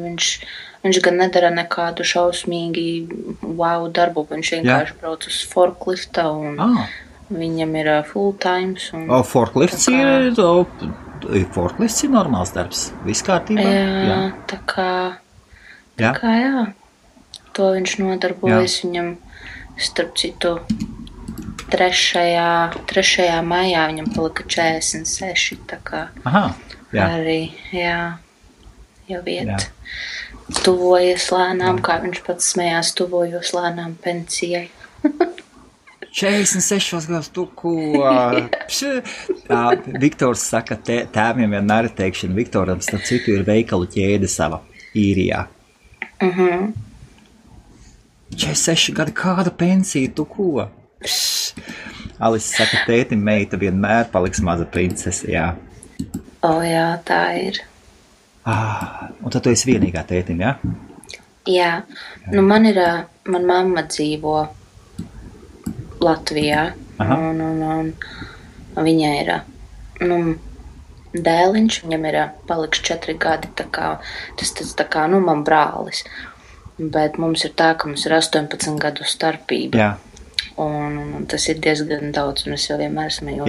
[SPEAKER 2] viņš gan nedara nekādu šausmīgi darbu, viņš vienkārši brauc uz forklifta, un viņam ir full times.
[SPEAKER 1] Forklifts ir normāls darbs, viss kārtībā?
[SPEAKER 2] Jā, tā kā jā, to viņš nodarbojas, viņam, starp citu, 3. maijā viņam palika 46, tā kā. Arī, jau iet. Tuvojas lēnām, kā viņš pats smējās, tuvojos lēnām pensijai.
[SPEAKER 1] 46 gados, tu ko? Viktors saka, tēviem vienmēr ir teikšana. Viktoram, starp citu, ir veikalu ķēde sava īrijā. 46 gadi, kāda pensija, tu ko? Alis saka, tētim meita vienmēr paliks maza princese, jā.
[SPEAKER 2] Jā, tā ir.
[SPEAKER 1] Un tad tu esi vienīgā tētim, jā?
[SPEAKER 2] Jā. Man mamma dzīvo Latvijā, un viņa ir, dēliņš, viņam ir paliks 4 gadi, tā kā, tas tā kā, man brālis, bet mums ir tā, ka mums ir 18 gadu starpība.
[SPEAKER 1] Jā.
[SPEAKER 2] Un tas ir diezgan daudz, un es jau vienmēr smējos,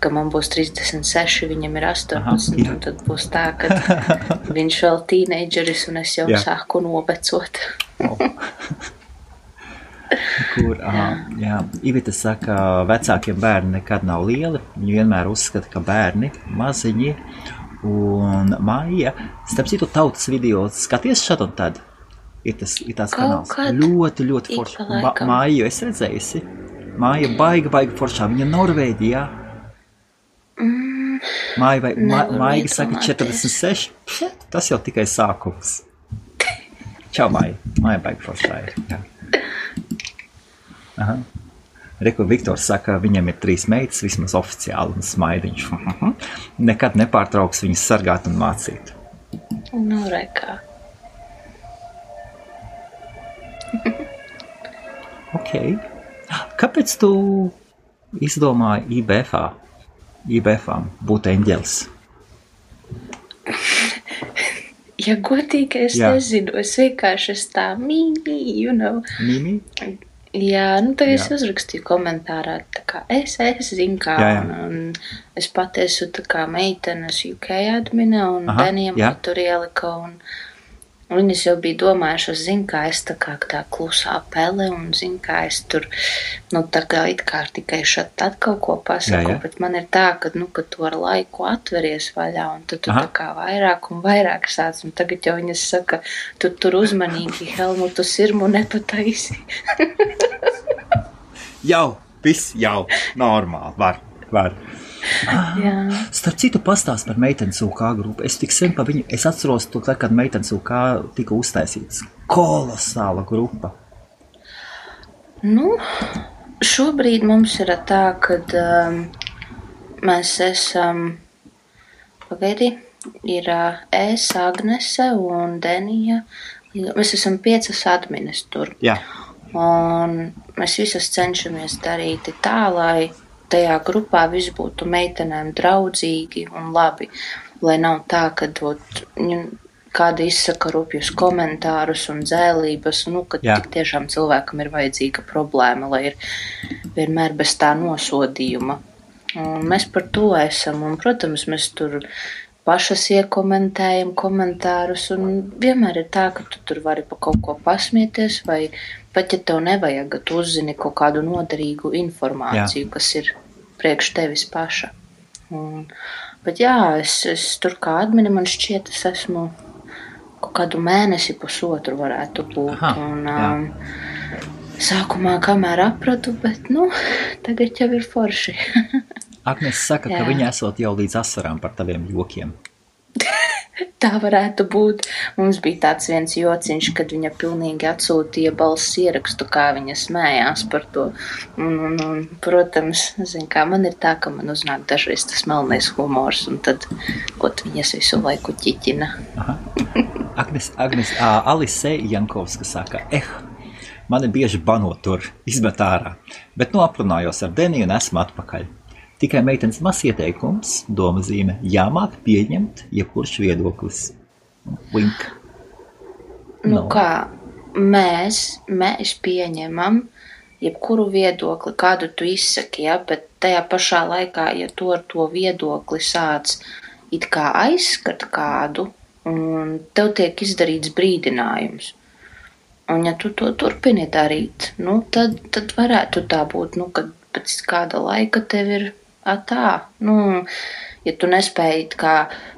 [SPEAKER 2] ka man būs 36, viņam ir 18, un tad būs tā, ka viņš vēl tīneidžeris, un es jau sāku novecot.
[SPEAKER 1] Ivita saka, vecākiem bērni nekad nav lieli, viņi vienmēr uzskata, ka bērni maziņi, un Maija, starp citu tautas video, skaties šad un tad? Ir tās kanāls. Ļoti, ļoti foršā. Māju es redzējusi. Māja baiga foršā. Viņa Norvēģijā. Māja saka 46. Tas jau tikai sākums. Čau, Māja. Māja baiga foršā ir. Reku Viktors saka, viņam ir 3 meitas, vismaz oficiāli, un smaidiņš. Nekad nepārtrauks viņas sargāt un mācīt.
[SPEAKER 2] Rekā.
[SPEAKER 1] Ok. Kāpēc tu izdomāji IBF-ām būt eņģelis?
[SPEAKER 2] Ja godīgi, es nezinu. Es vienkārši tā mīmī,
[SPEAKER 1] Mīmī?
[SPEAKER 2] Jā, nu tad es uzrakstīju komentārā, tā kā es zinu kā, un es pat esmu tā kā meitenes UK admina, un Denijam tur ielika, un viņas jau bija domājušas, zinu kā es tā kā tā klusā pele, un zinu kā es tur, nu tā kā it kā tikai šat tad kaut ko pasaku, bet man ir tā, ka, nu, ka tu ar laiku atveries vaļā, un tad tu tā kā vairāk un vairāk sāc, un tagad jau viņas saka, tu tur uzmanīgi Helmutu sirmu nepataisi.
[SPEAKER 1] Jau, viss jau, normāli, var. Starp citu pastāst par meitenes UK grupu. Es tik sen pa viņu, es atceros to, kad meitenes UK tika uztaisīts. Kolosāla grupa.
[SPEAKER 2] Nu, šobrīd mums ir tā, kad mēs esam, pagaidi, ir es, Agnese un Denija. Mēs esam 5 admines tur.
[SPEAKER 1] Jā.
[SPEAKER 2] Un mēs visas cenšamies darīt tā, lai tajā grupā viss būtu meitenēm draudzīgi un labi, lai nav tā, ka kāda izsaka rupjus komentārus un dzēlības, nu, ka tik tiešām cilvēkam ir vajadzīga problēma, lai ir vienmēr bez tā nosodījuma. Un mēs par to esam, un, protams, mēs tur pašas iekomentējam komentārus, un vienmēr ir tā, ka tu tur vari pa kaut ko pasmieties, vai pat ja tev nevajag, tu uzzini kaut kādu noderīgu informāciju, kas ir priekš tevis paša. Bet jā, es tur kā admini, man šķiet, es esmu kaut kādu mēnesi pusotru varētu būt. Sākumā kamēr apradu, bet, nu, tagad jau ir forši.
[SPEAKER 1] Agnes saka, ka viņa esot jau līdz asarām par taviem jokiem.
[SPEAKER 2] Tā varētu būt. Mums bija tāds viens jociņš, kad viņa pilnīgi atsūtīja balss ierakstu, kā viņa smējās par to. Un protams, zin kā, man ir tā, ka man uznāk dažreiz tas melnais humors, un tad, ot, viņas visu laiku ķiķina.
[SPEAKER 1] Agnes, Alise Jankovska saka, mani bieži bano tur, izmet ārā, bet nu aprunājos ar Deniju un esmu atpakaļ. Tikai meitenes mazs ieteikums, doma zīme, jāmāk pieņemt jebkurš viedoklis. Link.
[SPEAKER 2] Nu kā, mēs pieņemam jebkuru viedokli, kādu tu izsaki, ja, bet tajā pašā laikā, ja tu ar to viedokli sāc it kā aizskat kādu, un tev tiek izdarīts brīdinājums. Un ja tu to turpini darīt, nu, tad varētu tā būt, nu, kad pēc kāda laika tev ir tā, nu, ja tu nespēji, kā,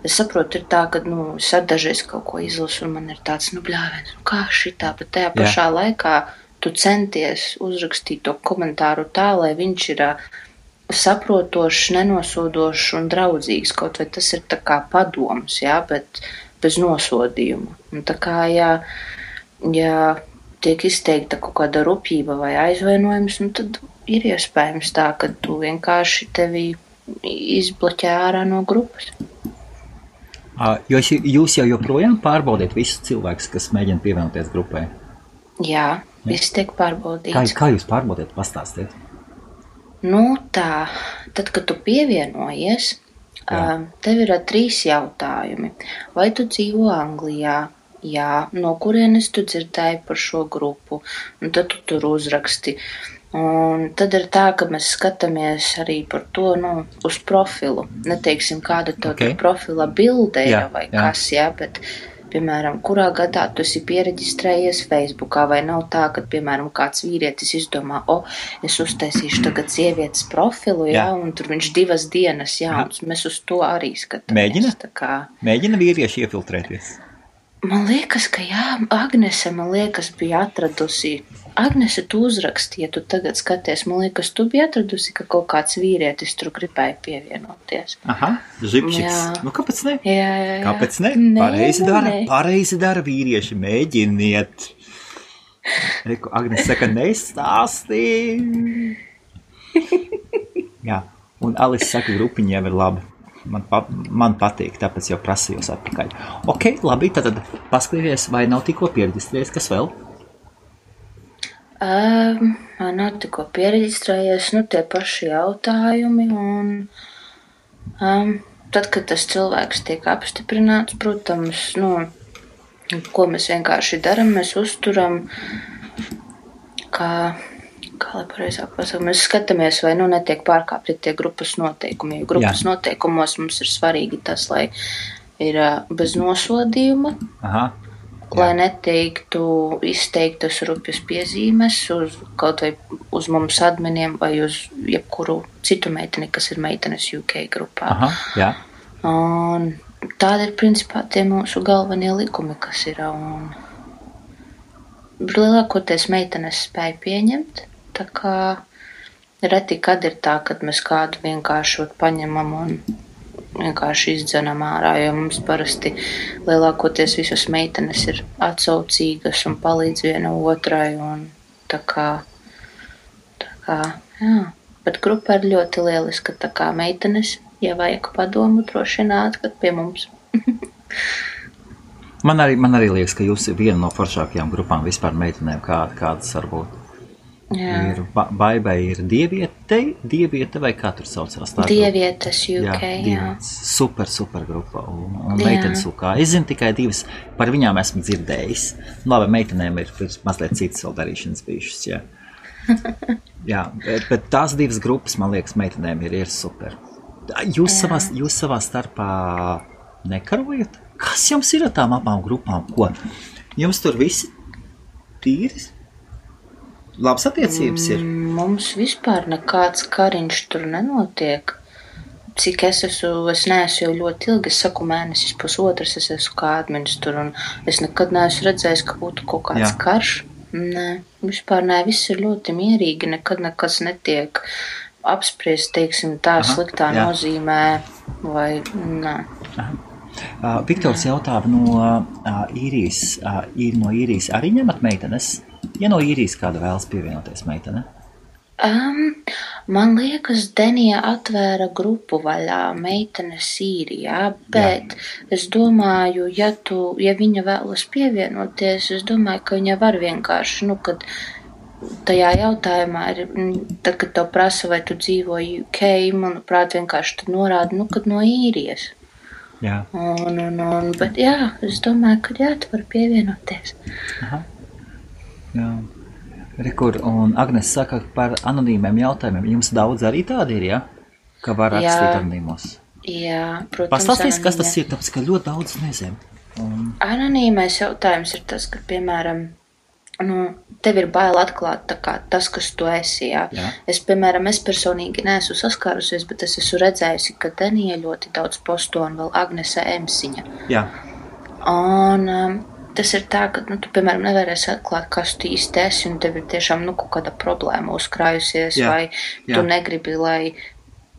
[SPEAKER 2] es saprotu, ir tā, ka, nu, es dažreiz kaut ko izlasu, un man ir tāds, nu, bļāviens, nu, kā šitā, bet tajā pašā laikā tu centies uzrakstīt to komentāru tā, lai viņš ir saprotošs, nenosodošs un draudzīgs, kaut vai tas ir tā kā padoms, jā, bet bez nosodījuma. Un tā kā, ja tiek izteikta kaut kāda rupjība vai aizvainojums, nu, tad ir iespējams tā, ka tu vienkārši tevi izbloķē ārā no grupas.
[SPEAKER 1] Jūs jau joprojām pārbaudiet visus cilvēkus, kas mēģina pievienoties grupai?
[SPEAKER 2] Jā, viss tiek pārbaudīts.
[SPEAKER 1] Kā jūs pārbaudiet? Pastāstiet.
[SPEAKER 2] Nu tā, tad, kad tu pievienojies, tev ir 3 jautājumi. Vai tu dzīvo Anglijā? Jā, no kurienes tu dzirdēji par šo grupu? Un tad tu tur uzraksti. Un tad ir tā, ka mēs skatāmies arī par to, nu, uz profilu. Neteiksim, kāda tev tur profila bilde ir vai kas, bet, piemēram, kurā gadā tu esi piereģistrējies Facebookā, vai nav tā, ka, piemēram, kāds vīrietis izdomā, es uztaisīšu tagad sievietes profilu, un tur viņš 2 dienas, un mēs uz to arī skatāmies.
[SPEAKER 1] Mēģina vīrieši iefiltrēties?
[SPEAKER 2] Man liekas, ka Agnese, bija atradusi. Agnese, tu uzraksti, ja tu tagad skaties, man liekas, tu biji atradusi, ka kaut kāds vīrietis tur gribēja pievienoties.
[SPEAKER 1] Žipčiks. Nu, kāpēc ne?
[SPEAKER 2] Jā.
[SPEAKER 1] Kāpēc ne? Pareizi dara vīrieši, mēģiniet. Reku, Agnese saka, nestāstī. Jā, un Alice saka, grupiņa jau ir laba. Man patīk, tāpēc jau prasījos atpakaļ. Ok, labi, tad paskatīties, vai nav tikko piereģistrējies, kas vēl?
[SPEAKER 2] Man nav tikko piereģistrējies, nu tie paši jautājumi, un tad, kad tas cilvēks tiek apstiprināts, protams, nu, ko mēs vienkārši daram, mēs uzturam, kā kā lai pareizāk pasaka, mēs skatāmies, vai netiek pārkāpti tie grupas noteikumi. Jo grupas noteikumos mums ir svarīgi tas, lai ir bez nosodījuma, lai neteiktu izteiktas rupjas piezīmes kaut vai uz mums adminiem vai uz jebkuru citu meiteni, kas ir meitenes UK grupā. Un tādi ir principā tie mūsu galvenie likumi, kas ir. Un lielākoties meitenes spēja pieņemt, tā kā reti kad ir tā, kad mēs kādu vienkārši paņemam un vienkārši izdzenam ārā, jo mums parasti lielākoties visas meitenes ir atsaucīgas un palīdz viena otrai un tā kā, jā. Bet grupa ir ļoti lieliska, tā kā meitenes, ja vajag padomu, droši nāk pie mums.
[SPEAKER 1] Man arī liekas, ka jūs ir viena no foršākajām grupām vispār meitenēm, kādas varbūt. Jā. Ir Baibai ir Dieviete vai kā tur saucās?
[SPEAKER 2] Dievietes UK, jā.
[SPEAKER 1] Super grupa un meitenes UK. Es zinu tikai divas, par viņām esmu dzirdējis. Labi, meitenēm ir mazliet citas vēl darīšanas bijušas, jā. Jā, bet tās divas grupas, man liekas, meitenēm ir super. Jūs savā starpā nekarojat? Kas jums ir ar tām abām grupām? Ko? Jums tur visi tīri? Labas attiecības ir?
[SPEAKER 2] Mums vispār nekāds kariņš tur nenotiek. Cik es neesmu jau ļoti ilgi, es saku mēnesis pusotras, es esmu kā admins tur, un es nekad neesmu redzējis, ka būtu kaut kāds karš. Nē, vispār nē, viss ir ļoti mierīgi, nekad nekas netiek apspriest, teiksim, tā sliktā nozīmē, vai nē.
[SPEAKER 1] Viktors jautā no īrijas arī ņemat meitenes? Ja no īrijas kāda vēlas pievienoties meitene?
[SPEAKER 2] Man liekas, Denija atvēra grupu vaļā meitenes Īrijā, bet es domāju, ja viņa vēlas pievienoties, es domāju, ka viņa var vienkārši, kad tajā jautājumā ir, tad, kad tev prasa, vai tu dzīvo UK, manuprāt, vienkārši tad norāda, kad no Īrijas.
[SPEAKER 1] Jā.
[SPEAKER 2] Bet jā, es domāju, ka tu vari pievienoties.
[SPEAKER 1] Jā. Rekur, un Agnes saka par anonīmiem jautājumiem. Jums daudz arī tādi ir, ja? Ka var rakstīt anonīmos.
[SPEAKER 2] Jā, protams.
[SPEAKER 1] Pastāstīs, kas tas ir, tāpēc, ka ļoti daudz nezinu.
[SPEAKER 2] Anonīmais jautājums ir tas, ka, piemēram, tev ir bail atklāt tas, kas tu esi, jā. Es personīgi neesmu saskārusies, bet es esmu redzējusi, ka Denija ļoti daudz posto un vēl Agnese Emsiņa.
[SPEAKER 1] Jā.
[SPEAKER 2] Un tas ir tā, ka, tu, piemēram, nevarēsi atklāt, kas tu īsti esi, un tev ir tiešām, kaut kāda problēma uzkrājusies, vai tu negribi, lai,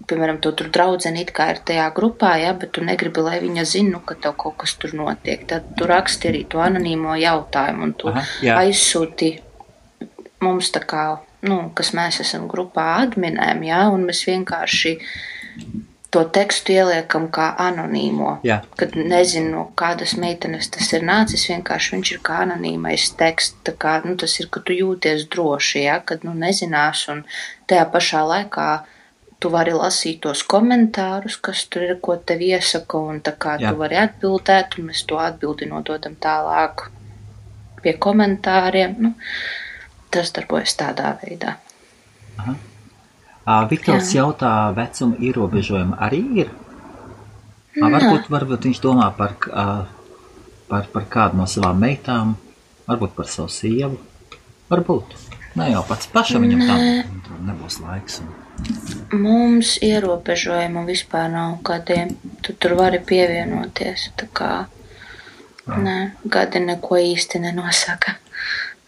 [SPEAKER 2] piemēram, tu tur draudzeni it kā ir tajā grupā, bet tu negribi, lai viņa zina, ka tev kaut kas tur notiek. Tad tu raksti arī to anonīmo jautājumu, un tu aizsūti mums tā kā, kas mēs esam grupā adminēm, un mēs vienkārši to tekstu ieliekam kā anonīmo.
[SPEAKER 1] Jā.
[SPEAKER 2] Kad nezinu, kādas meitenes tas ir nācis, vienkārši viņš ir kā anonīmais teksts. Tā kā, tas ir, ka tu jūties droši, kad nezinās, un tajā pašā laikā tu vari lasīt tos komentārus, kas tur ir, ko tev iesaka, un tā kā tu vari atbildēt, un mēs to atbildi nododam tālāk pie komentāriem. Tas darbojas tādā veidā.
[SPEAKER 1] Aha. Viktors jautā, vecuma ierobežojumi arī ir? Varbūt viņš domā par kādu no savām meitām, varbūt par savu sievu. Varbūt. Ne jau pats pašam viņam tam nebūs laiks.
[SPEAKER 2] Mums ierobežojumu vispār nav kādiem. Tu tur vari pievienoties. Tā kā gadi neko īsti nenosaka.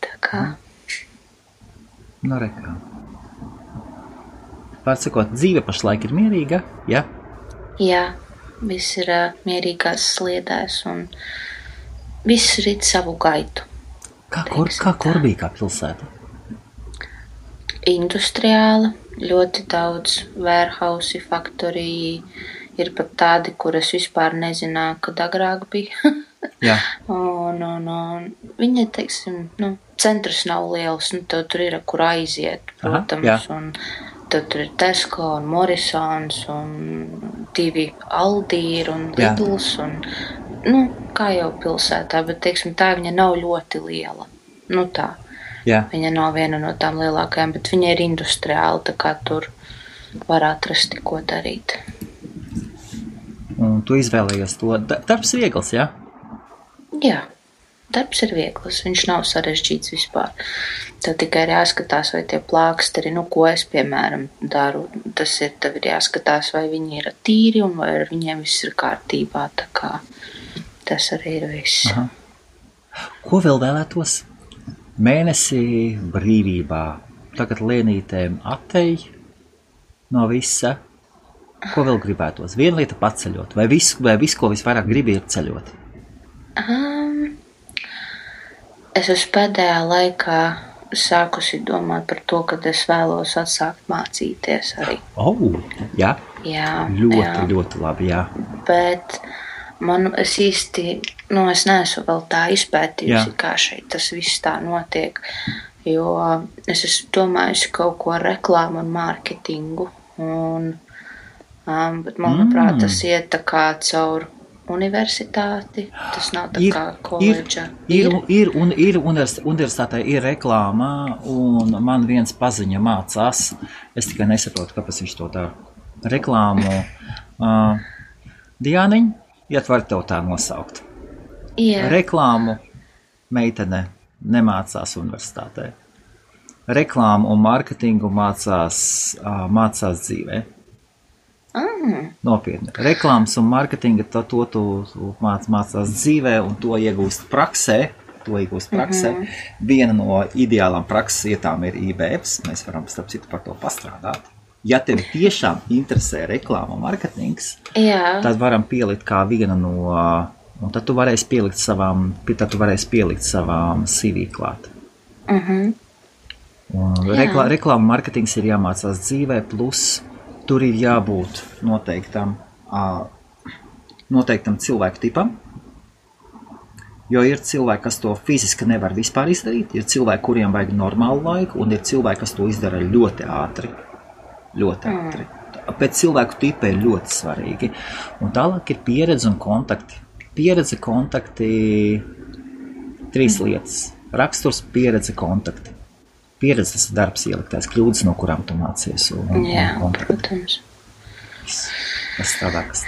[SPEAKER 2] Tā kā.
[SPEAKER 1] Rekā. Pārsakot, dzīve pašlaik ir mierīga, ja?
[SPEAKER 2] Jā, viss ir mierīgās sliedēs un viss rit savu gaitu.
[SPEAKER 1] Kā Korbī, kā pilsēta?
[SPEAKER 2] Industriāla, ļoti daudz warehouse, faktoriji, ir pat tādi, kuras vispār nezināju, kad agrāk bija.
[SPEAKER 1] Jā.
[SPEAKER 2] Un viņa, teiksim, centrs nav liels, tev tur ir, kur aiziet, protams, un tad tur ir Tesco un Morrisons un 2 Aldi un Lidls un, kā jau pilsētā, bet, teiksim, tā viņa nav ļoti liela. Tā.
[SPEAKER 1] Jā.
[SPEAKER 2] Viņa nav viena no tām lielākajām, bet viņa ir industriāla, tā kā tur var atrast, ko darīt.
[SPEAKER 1] Un tu izvēlējies to. Darbs viegls, jā?
[SPEAKER 2] Jā, darbs ir viegls, viņš nav sarežģīts vispār. Tev tikai ir jāskatās, vai tie plāksteri, ko es, piemēram, daru. Tas ir, tev ir jāskatās, vai viņi ir tīri un vai ar viņiem viss ir kārtībā, tā kā tas arī ir viss.
[SPEAKER 1] Aha. Ko vēl vēlētos? Mēnesi brīvībā. Tagad lēnītēm atej no visa. Ko vēl gribētos? Viena lieta paceļot. Vai viss, ko visvairāk gribi, ir ceļot?
[SPEAKER 2] Es uz pēdējā laikā sākusi domāt par to, ka es vēlos atsākt mācīties arī.
[SPEAKER 1] Jā?
[SPEAKER 2] Jā.
[SPEAKER 1] Ļoti labi, jā.
[SPEAKER 2] Bet es īsti, es neesmu vēl tā izpētījusi, kā šeit tas viss tā notiek, jo es esmu domājusi kaut ko ar reklāmu un mārketingu, bet manuprāt, tas iet tā kā caur universitāti, tas nav tā kā koledža.
[SPEAKER 1] Ir universitātē ir reklāma, un man viens paziņa mācās, es tikai nesaprotu, kāpēc viņš to dara. Reklāmu, Diāniņ, var tev tā nosaukt.
[SPEAKER 2] Yeah.
[SPEAKER 1] Reklāmu meitene nemācās universitātē. Reklāmu un mārketingu mācās dzīvē. Nopietni. Reklāmas un mārketinga to tu mācās dzīvē un to iegūst praksē. Viena no ideālām prakses vietām ir IBFs. Mēs varam starp citu par to pastrādāt. Ja tev tiešām interesē reklāma un mārketings, tad varam pielikt kā viena no, un tad tu varēsi pielikt savām CV klāt. Reklāma un mārketings ir jāmācās dzīvē, plus tur ir jābūt noteiktam cilvēku tipam, jo ir cilvēki, kas to fiziski nevar vispār izdarīt, ir cilvēki, kuriem vajag normālu laiku, un ir cilvēki, kas to izdara ļoti ātri. Pēc cilvēku tipa ir ļoti svarīgi. Un tālāk ir pieredze un kontakti. Pieredze, kontakti, 3 lietas. Raksturs, pieredze, kontakti. Pieredze, tas ir darbs ieliktais, kļūdas, no kurām tu mācies.
[SPEAKER 2] Jā, protams.
[SPEAKER 1] Tas strādā, kas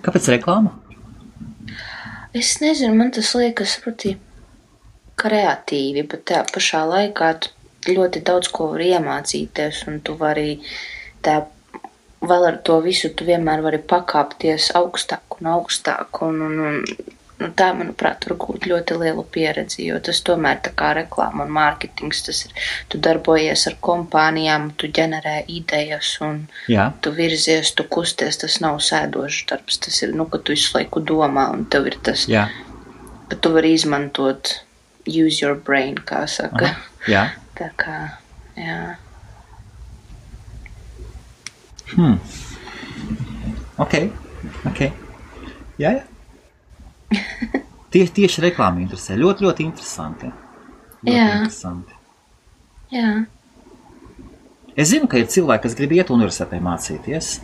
[SPEAKER 1] Kāpēc reklāma?
[SPEAKER 2] Es nezinu, man tas liekas proti kreatīvi, bet tā pašā laikā tu ļoti daudz ko var iemācīties, un tu vari vēl ar to visu, tu vienmēr vari pakāpties augstāk un augstāk, un tā, manuprāt, var gūt ļoti lielu pieredzi, jo tas tomēr tā kā reklāma un mārketings, tas ir, tu darbojies ar kompānijām, tu ģenerē idejas, un tu virzies, tu kusties, tas nav sēdošs darbs, tas ir, ka tu visu laiku domā, un tev ir tas, ka tu vari izmantot use your brain, kā saka. Tā kā, jā.
[SPEAKER 1] Ok. Jā. Tieši reklāma interesē. Ļoti, ļoti interesanti. Interesanti.
[SPEAKER 2] Jā.
[SPEAKER 1] Es zinu, ka ir cilvēki, kas grib iet universitātē mācīties.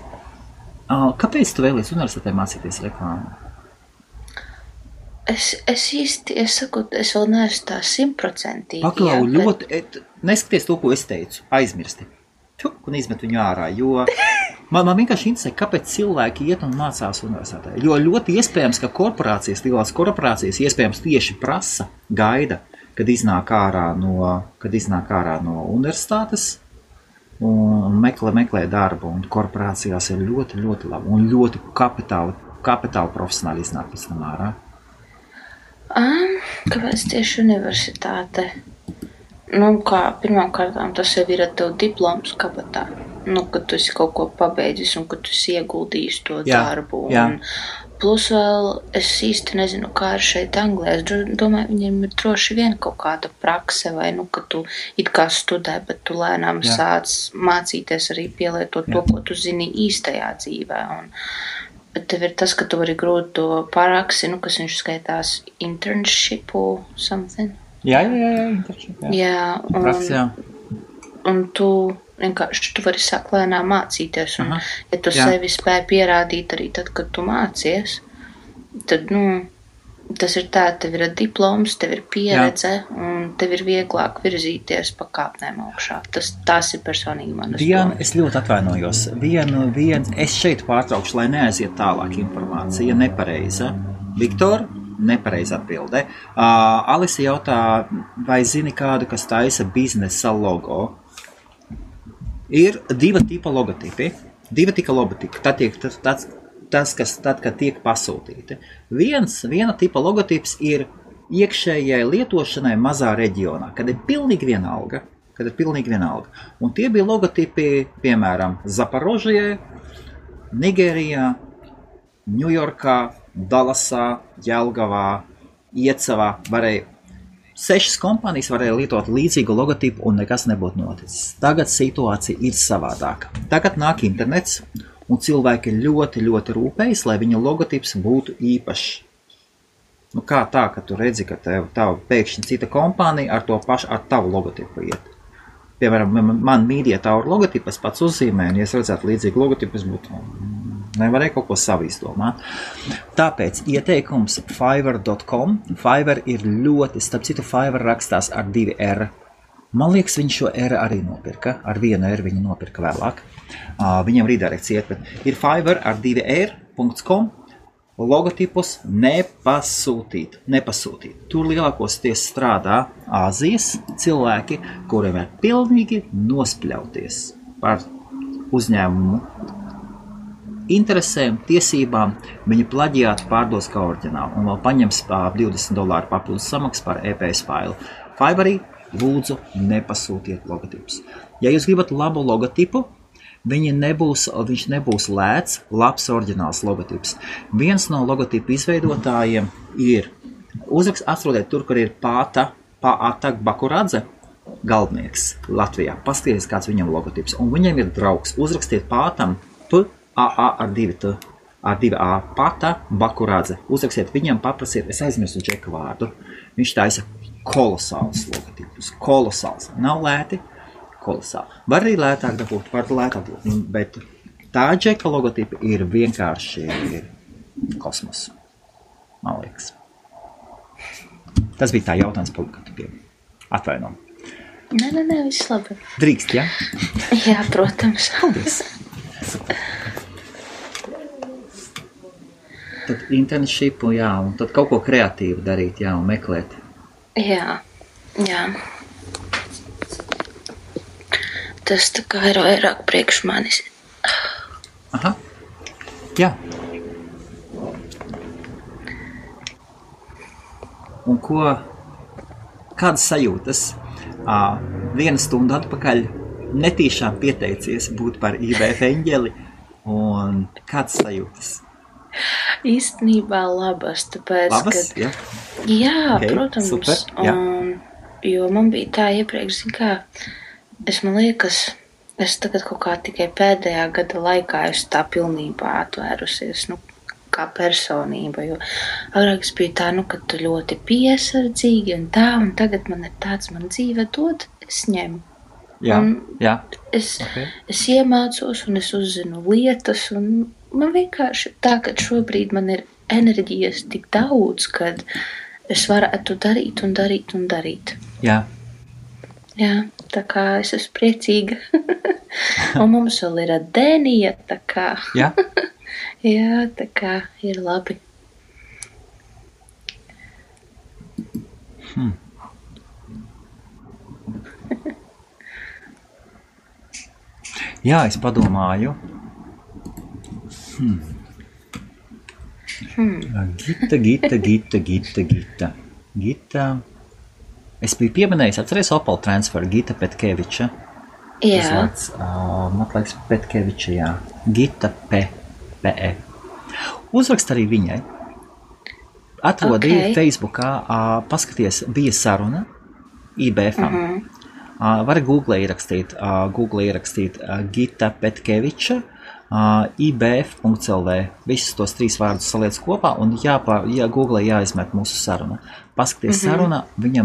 [SPEAKER 1] Kāpēc tu vēlies universitātē mācīties reklāmu?
[SPEAKER 2] Es vēl neesmu tā 100%.
[SPEAKER 1] Paklau, ļoti, neskaties to, ko es teicu, aizmirsti. Un izmet viņu ārā, jo man vienkārši interesē, kāpēc cilvēki iet un mācās universitātē. Jo ļoti iespējams, ka lielās korporācijas iespējams tieši prasa, gaida, kad iznāk ārā no universitātes un meklē darbu. Un korporācijās ir ļoti, ļoti labi un ļoti kapitāli profesionāli iznāk pēc tam ārā.
[SPEAKER 2] Kāpēc tieši universitāte? Pirmām kārtām tas jau ir ar tev diploms kabatā. Kad tu esi kaut ko pabeidzis un kad tu esi ieguldījis to darbu. Un plus vēl es īsti nezinu, kā ir šeit Anglijā. Es domāju, viņiem ir droši vien kaut kāda prakse vai, ka tu it kā studē, bet tu lēnām sāc mācīties arī pielietot to, ko tu zini īstajā dzīvē. Bet tev ir tas, ka tu vari grūt to paraksi, kas viņš skaitās internship or something.
[SPEAKER 1] Jā, internship.
[SPEAKER 2] Un tu vienkārši tu vari sākt lēnām mācīties. Un, ja tu sevi spēj pierādīt arī tad, kad tu mācies, tad, tas ir tā, tev ir diploms, tev ir pieredze, un tev ir vieglāk virzīties pa kāpnēm augšā. Tās ir personīgi manas domas.
[SPEAKER 1] Es ļoti atvainojos. Es šeit pārtraukšu, lai neaiziet tālāk informācija nepareiza. Viktor, nepareiza atbilde. Alisa jautā, vai zini kādu, kas taisa biznesa logo? Ir divi tipa logotipi. Tad, kad tiek pasūtīti. Viena tipa logotips ir iekšējai lietošanai mazā reģionā, kad ir pilnīgi vienalga. Un tie bija logotipi, piemēram, Zaporožijai, Nigērijā, Ņujorkā, Dallasā, Jelgavā, Iecavā. 6 kompānijas varēja lietot līdzīgu logotipu un nekas nebūtu noticis. Tagad situācija ir savādāka. Tagad nāk internets un cilvēki ļoti, ļoti rūpējas, lai viņa logotips būtu īpašs. Kā tā, ka tu redzi, ka tev pēkšņi cita kompānija ar tavu logotipu iet. Piemēram, man Media Tower logotipas pats uzzīmē, un ja es redzētu līdzīgu logotipu, es būtu nevarēju kaut ko savu izdomāt. Tāpēc ieteikums Fiverr.com. Fiverr ir ļoti, starp citu, Fiverr rakstās ar 2 R. Man liekas, viņš šo R arī nopirka. Ar 1 R viņu nopirka vēlāk. Viņam redirekcija iet, bet ir Fiverr ar 2 R.com. Logotipus nepasūtīt. Tur lielākoties strādā Āzijas cilvēki, kuriem ir pilnīgi nospļauties par uzņēmumu interesēm, tiesībām. Viņi plaģiātu pārdos kā oriģinālu un vēl paņems $20 papildus samaksas par EPS failu. Fiverrī lūdzu nepasūtiet logotipus. Ja jūs gribat labu logotipu, viņš nebūs lēts, labs oriģināls logotips. Viens no logotipu izveidotājiem ir, atrodiet tur, kur ir Pāta Bakuradze, galdnieks Latvijā. Paskatieties, kāds viņam logotips. Un viņam ir draugs. Uzrakstiet Pātam ar 2A, Pāta Bakuradze. Uzrakstiet viņam, paprasiet, es aizmirsu Džeka vārdu. Viņš taisa kolosāls logotipus. Kolosāls. Nav lēti. Kolosāli. Var arī lētāk dabūt, bet tā Džeka logotipa ir vienkārši kosmos. Man liekas. Tas bija tā jautājums par logotipiem. Atvaino.
[SPEAKER 2] Nē, viss labi.
[SPEAKER 1] Drīkst, ja?
[SPEAKER 2] Jā, protams.
[SPEAKER 1] Paldies. Tad internshipu, jā, un tad kaut ko kreatīvu darīt, jā, un meklēt.
[SPEAKER 2] Jā. Tas tā kā ir vairāk priekš manis.
[SPEAKER 1] Aha, jā. Un kādas sajūtas? 1 stundu atpakaļ netīšām pieteicies būt par IBF eņģeli, un kādas sajūtas?
[SPEAKER 2] Īstenībā labas, tāpēc,
[SPEAKER 1] labas, jā?
[SPEAKER 2] Jā,
[SPEAKER 1] okay,
[SPEAKER 2] protams.
[SPEAKER 1] Super, jā.
[SPEAKER 2] Jo man bija tā iepriekš, man liekas, es tagad kaut kā tikai pēdējā gada laikā esmu tā pilnībā atvērusies, kā personība, jo agrāk es biju tā, ka tu ļoti piesardzīgi un tagad man ir tāds, man dzīve dod, es ņemu.
[SPEAKER 1] Jā.
[SPEAKER 2] Es iemācos un es uzzinu lietas, un man vienkārši tā, ka šobrīd man ir enerģijas tik daudz, kad es varētu darīt un darīt un darīt.
[SPEAKER 1] Jā.
[SPEAKER 2] Jā, tā kā es esmu priecīga. Un mums vēl ir Dēnija, tā kā.
[SPEAKER 1] Jā?
[SPEAKER 2] Jā, tā kā ir labi.
[SPEAKER 1] Jā, es padomāju. Gita. Es biju pieminējis, atceries Opel Transfer, Gita Petkeviča.
[SPEAKER 2] Jā.
[SPEAKER 1] Man liekas, Petkeviča, jā. Gita P.E. Uzrakst arī viņai. Atrodīja Facebookā, paskaties, bija saruna IBF-am. Var Google ierakstīt Gita Petkeviča, IBF.lv. Visus tos 3 vārdus saliec kopā un Google jāizmet mūsu saruna. Paskaties saruna, viņa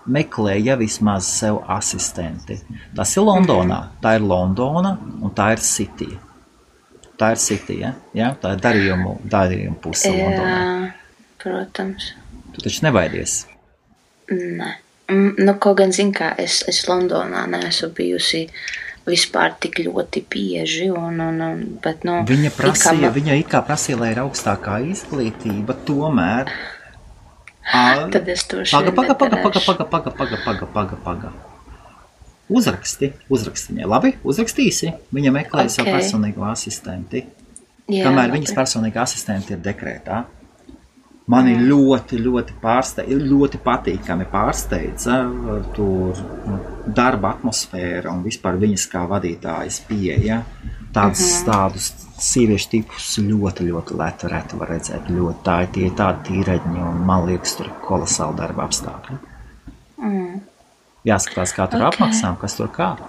[SPEAKER 1] meklēja vismaz sev asistenti. Tas ir Londonā, tā ir Londona un tā ir City. Tā ir City, ja? Tā ir darījumu puse Londonā.
[SPEAKER 2] protams.
[SPEAKER 1] Tu taču nebaidies?
[SPEAKER 2] Nē. Nu, kaut gan, zin kā, es Londonā neesmu bijusi vispār tik ļoti bieži, bet, nu...
[SPEAKER 1] Viņa it kā prasīja, lai ir augstākā izglītība, tomēr...
[SPEAKER 2] Tad es to šeit nedarēšu.
[SPEAKER 1] Paga. Uzraksti viņai. Labi, uzrakstīsi. Viņa meklē savu personīgo asistenti.
[SPEAKER 2] Jā,
[SPEAKER 1] kamēr viņas personīga asistenti ir dekrētā. Mani ļoti patīkami pārsteidza tur darba atmosfēra un vispār viņas kā vadītājas pieeja. Tādus sieviešu tipus ļoti reti var redzēt. Tie ir tādi tīreģi un man liekas, tur ir kolosāli darba apstākļi. Jāskatās, kā tur apmaksām, kas tur kā.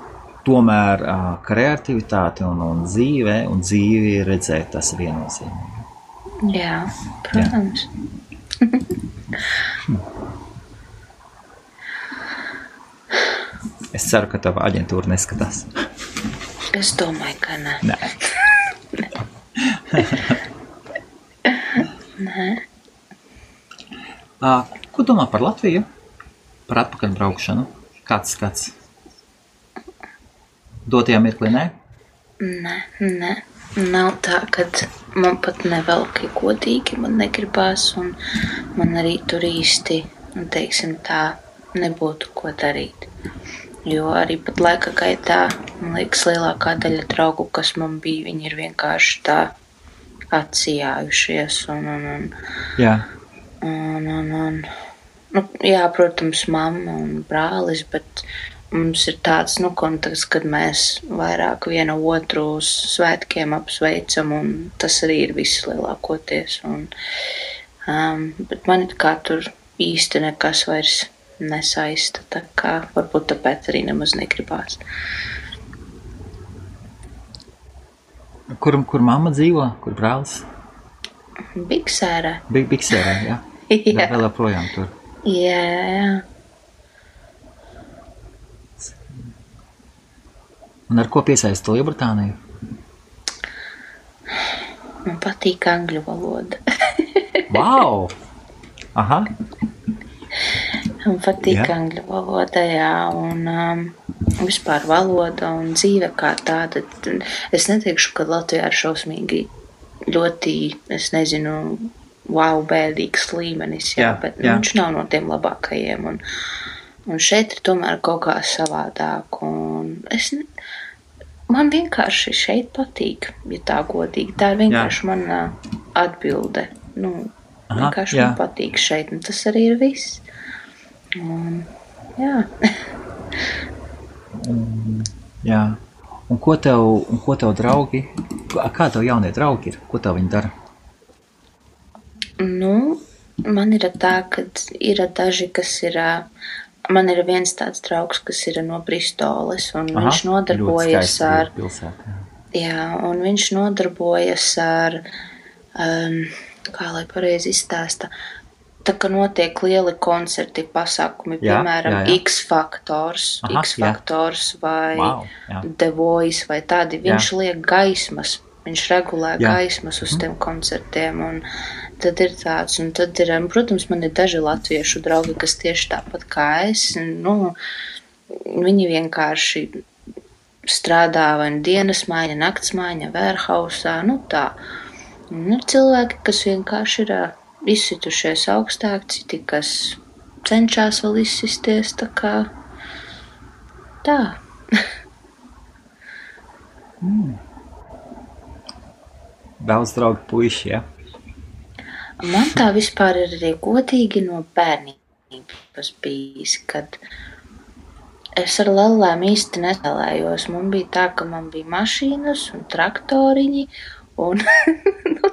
[SPEAKER 1] Tomēr kreativitāte un dzīvi redzēt, tas ir viennozīmīgi.
[SPEAKER 2] Jā, protams.
[SPEAKER 1] Es ceru, ka tava aģentūra neskatās.
[SPEAKER 2] Es domāju, ka nē. Nē.
[SPEAKER 1] Ko domā par Latviju? Par atpakaļ braukšanu? Kāds skats? Dotajā mirklī, ne?
[SPEAKER 2] Nē. Nav tā, kad man pat nevelk godīgi, man negribās, un man arī tur īsti, teiksim tā, nebūtu ko darīt. Jo arī pat laika gaitā, man liekas, lielākā daļa draugu, kas man bija, viņi ir vienkārši tā atsijājušies,
[SPEAKER 1] Jā.
[SPEAKER 2] Jā, protams, mamma un brālis, bet mums ir tāds, konteksts, kad mēs vairāk viena otru uz svētkiem apsveicam, un tas arī ir viss lielākoties. Bet man kā tur īsti nekas vairs nesaista, tā kā varbūt tāpēc arī nemaz negribās.
[SPEAKER 1] Kur mamma dzīvo? Kur brālis?
[SPEAKER 2] Biksērē.
[SPEAKER 1] Biksērē, jā.
[SPEAKER 2] Jā.
[SPEAKER 1] Vēl joprojām tur.
[SPEAKER 2] Jā.
[SPEAKER 1] Un ar ko piesaisti Lielbritāniju?
[SPEAKER 2] Man patīk angļu valoda.
[SPEAKER 1] Vau! Aha.
[SPEAKER 2] Man patīk angļu valoda, jā, un vispār valoda un dzīve kā tāda. Es neteikšu, ka Latvijā ir šausmīgi ļoti, es nezinu, bēdīgs līmenis, bet viņš nav no tiem labākajiem. Un šeit ir tomēr kaut kā savādāk, un man vienkārši šeit patīk, ja tā godīgi. Tā ir vienkārši mana atbilde. Vienkārši man patīk šeit, un tas arī ir viss. Jā.
[SPEAKER 1] Jā. Un ko tev draugi, kā tev jaunie draugi ir? Ko tev viņi dara?
[SPEAKER 2] Man ir tā, ka ir daži, kas ir... Man ir viens tāds draugs, kas ir no Bristoles, un viņš nodarbojas ar... un viņš nodarbojas ar, kā lai pareizi izstāsta, tā kā notiek lieli koncerti, pasākumi, piemēram, X-Factors vai The Voice vai tādi. Viņš liek gaismas, viņš regulē gaismas uz tiem koncertiem, un tad ir tāds, un tad ir, protams, man ir daži latviešu draugi, kas tieši tāpat kā es, viņi vienkārši strādā vai dienas maiņa, nakts maiņa, warehousā, tā. Un ir cilvēki, kas vienkārši ir izsitušies augstāk, citi, kas cenšas vēl izsisties, tā kā tā.
[SPEAKER 1] Daudz draugu puiši, ja?
[SPEAKER 2] Man tā vispār ir arī godīgi no bērnības bijis, kad es ar lellēm īsti nespēlējos. Man bija tā, ka man bija mašīnas un traktoriņi un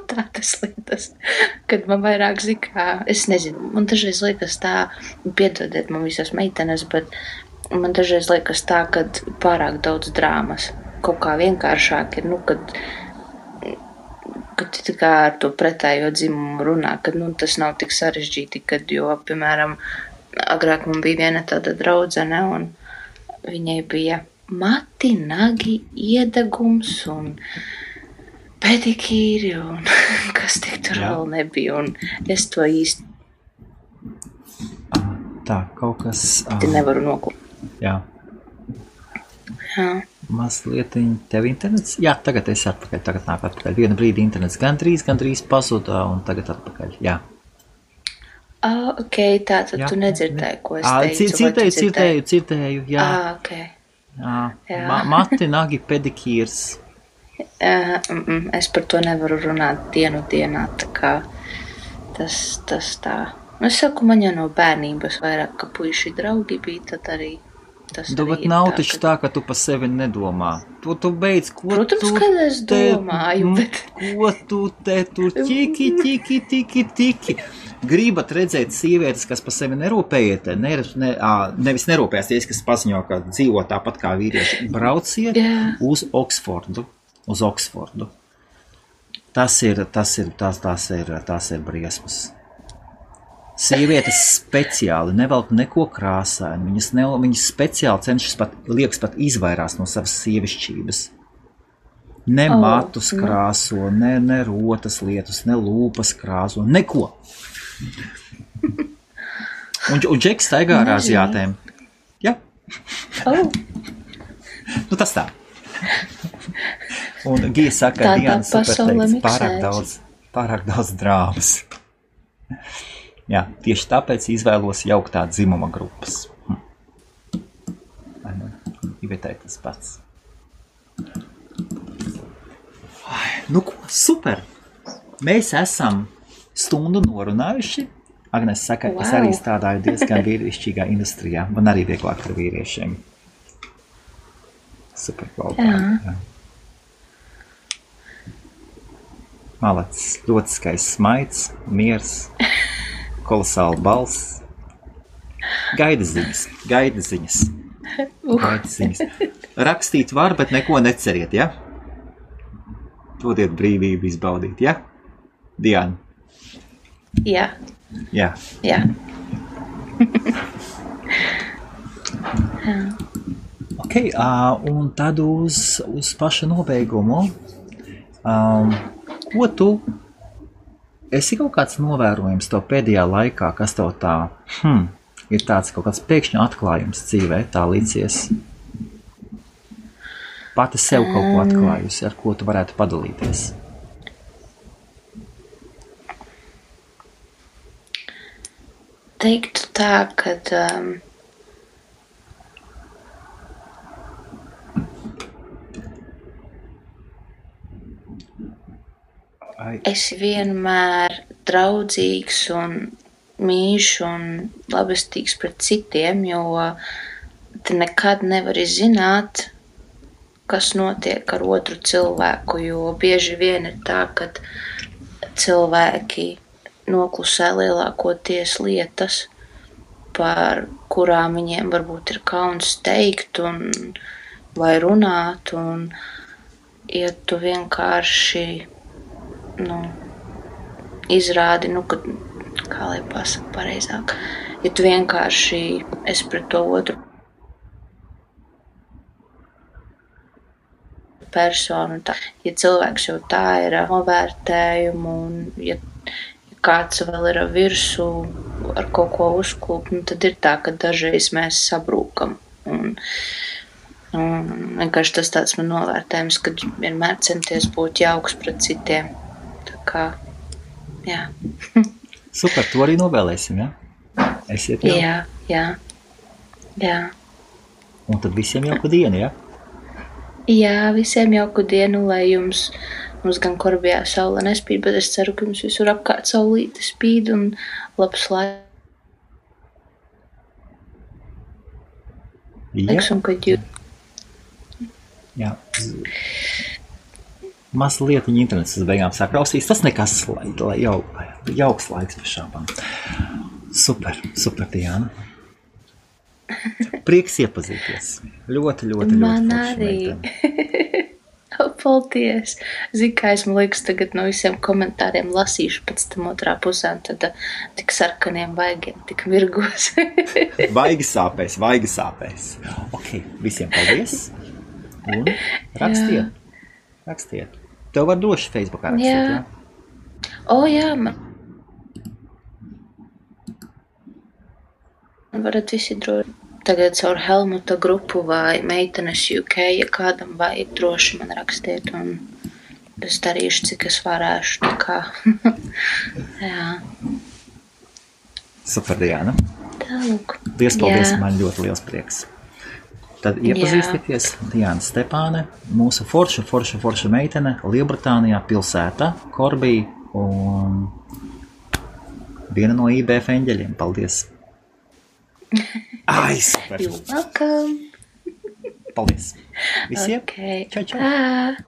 [SPEAKER 2] tādas lietas, kad man vairāk zikā, es nezinu, man dažreiz liekas tā, piedodiet man visas meitenes, bet man dažreiz liekas tā, kad pārāk daudz drāmas, kaut kā vienkāršāk ir, kad tā kā ar to pretējo dzimumu runā, kad tas nav tik sarežģīti, jo, piemēram, agrāk man bija viena tāda draudzene, un viņai bija mati, nagi, iedegums un pedikīri un kas tik tur vēl nebija, un es to īsti
[SPEAKER 1] tā, kaut kas...
[SPEAKER 2] nevaru noklāt.
[SPEAKER 1] Jā. Mazlietiņ, tev internets? Jā, tagad esi atpakaļ, tagad nāk atpakaļ. Vienu brīdi internets gandrīz pazuda, un tagad atpakaļ, jā.
[SPEAKER 2] Ok, tātad tu nedzirdēji, ko es teicu.
[SPEAKER 1] Dzirdēju, jā.
[SPEAKER 2] Ok.
[SPEAKER 1] Mati, nagi, pedikīrs.
[SPEAKER 2] Es par to nevaru runāt dienā, tā kā tas tā. Es saku, man jau no bērnības vairāk, ka puiši draugi bija, tad arī tas arī
[SPEAKER 1] bet nav taču tā, ka tu pa sevi nedomā. Tu beidz, ko
[SPEAKER 2] Protams,
[SPEAKER 1] tu...
[SPEAKER 2] kad es domāju, bet...
[SPEAKER 1] Ko tu te tur tiki. Gribat redzēt sievietes, kas pa sevi nerūpējiet, nevis nerūpēsies, kas paziņo, ka dzīvo tāpat kā vīrieši. Brauciet uz Oksfordu. Tas ir briesmas. Sievietes speciāli nevelk neko krāsaini. Viņas speciāli cenšas liekas pat izvairās no savas sievišķības. Ne matus krāso, ne rotas lietus, ne lūpas krāso, neko. Un Džeks staigā ar aziātēm. Ja? Nu tas tā. Un Gija saka, Diana superteikts, pārāk daudz drāmas. Jā, tieši tāpēc izvēlos jauktā dzimuma grupas. Ivetē tas pats. Nu ko, super! Mēs esam stundu norunājuši. Agnes saka, es arī strādāju diezgan vīrišķīgā industrijā. Man arī vieglāk ar vīriešiem. Super kvalitāte. Malacis, ļoti skaists smaids, miers, kolosāla balss. Gaida ziņas. Rakstīt var, bet neko neceriet, ja? Dodiet brīvību izbaudīt, ja? Diana?
[SPEAKER 2] Jā.
[SPEAKER 1] Ok, un tad uz paša nobeigumu. Ko tu esi kaut kāds novērojums tev pēdējā laikā, kas tev tā ir tāds kaut kāds pēkšņi atklājums dzīvē, tā līdzies? Pati sev kaut ko atklājusi, ar ko tu varētu padalīties?
[SPEAKER 2] Teiktu tā, kad esi vienmēr draudzīgs un mīļš un labestīgs pret citiem, jo tu nekad nevari zināt, kas notiek ar otru cilvēku, jo bieži vien ir tā, ka cilvēki noklusē lielākoties lietas, par kurām viņiem varbūt ir kauns teikt un vai runāt, un ja tu vienkārši izrādi, kad, kā lai pasaka pareizāk, ja tu vienkārši esi pret to otru personu, ja cilvēks jau tā ir novērtējumu, un ja kāds vēl ir virsū ar kaut ko uzklūp, tad ir tā, ka dažreiz mēs sabrūkam. Un vienkārši tas tāds man novērtējums, kad vienmēr centies būt jauks pret citiem. Tā kā, jā.
[SPEAKER 1] Super, to arī novēlēsim, ja? Esiet jau?
[SPEAKER 2] Jā.
[SPEAKER 1] Un tad visiem jauku dienu, ja?
[SPEAKER 2] Jā, visiem jauku dienu, lai mums gan Korbijā saule nespīd, bet es ceru, ka jums visur apkārt saulīte spīd un labs laiks, un kad jūs...
[SPEAKER 1] Jā. Mazlietiņi internets uz beigām sakrausīs, tas nekas, lai jauks laiks pa šāpām. Super, Diana. Prieks iepazīties. Ļoti
[SPEAKER 2] Man arī. Paldies. Zini, kā es, man liekas, tagad no visiem komentāriem lasīšu pēc tam otrā pusē, un tad tik sarkaniem vaigiem, tik mirgos.
[SPEAKER 1] Vaigi sāpēs. Ok, visiem paldies. Un rakstiet. Tev var droši Facebookā rakstīt, jā?
[SPEAKER 2] Jā, man varat visi droši. Tagad caur Helmuta grupu vai meitenes UK, ja kādam vajag, droši man rakstiet, un es darīšu, cik es varēšu. Tā kā. Jā.
[SPEAKER 1] Super, Diana.
[SPEAKER 2] Tālūk.
[SPEAKER 1] Liels paldies, man ļoti liels prieks. Tad iepazīstieties, Diana Stepāne, mūsu forša meitene, Lielbritānijā pilsētā, Korbī, un viena no IBF eņģeļiem. Paldies! Ai, super!
[SPEAKER 2] You're welcome!
[SPEAKER 1] Paldies! Visiem!
[SPEAKER 2] Okay.
[SPEAKER 1] Čau, čau!
[SPEAKER 2] Tā.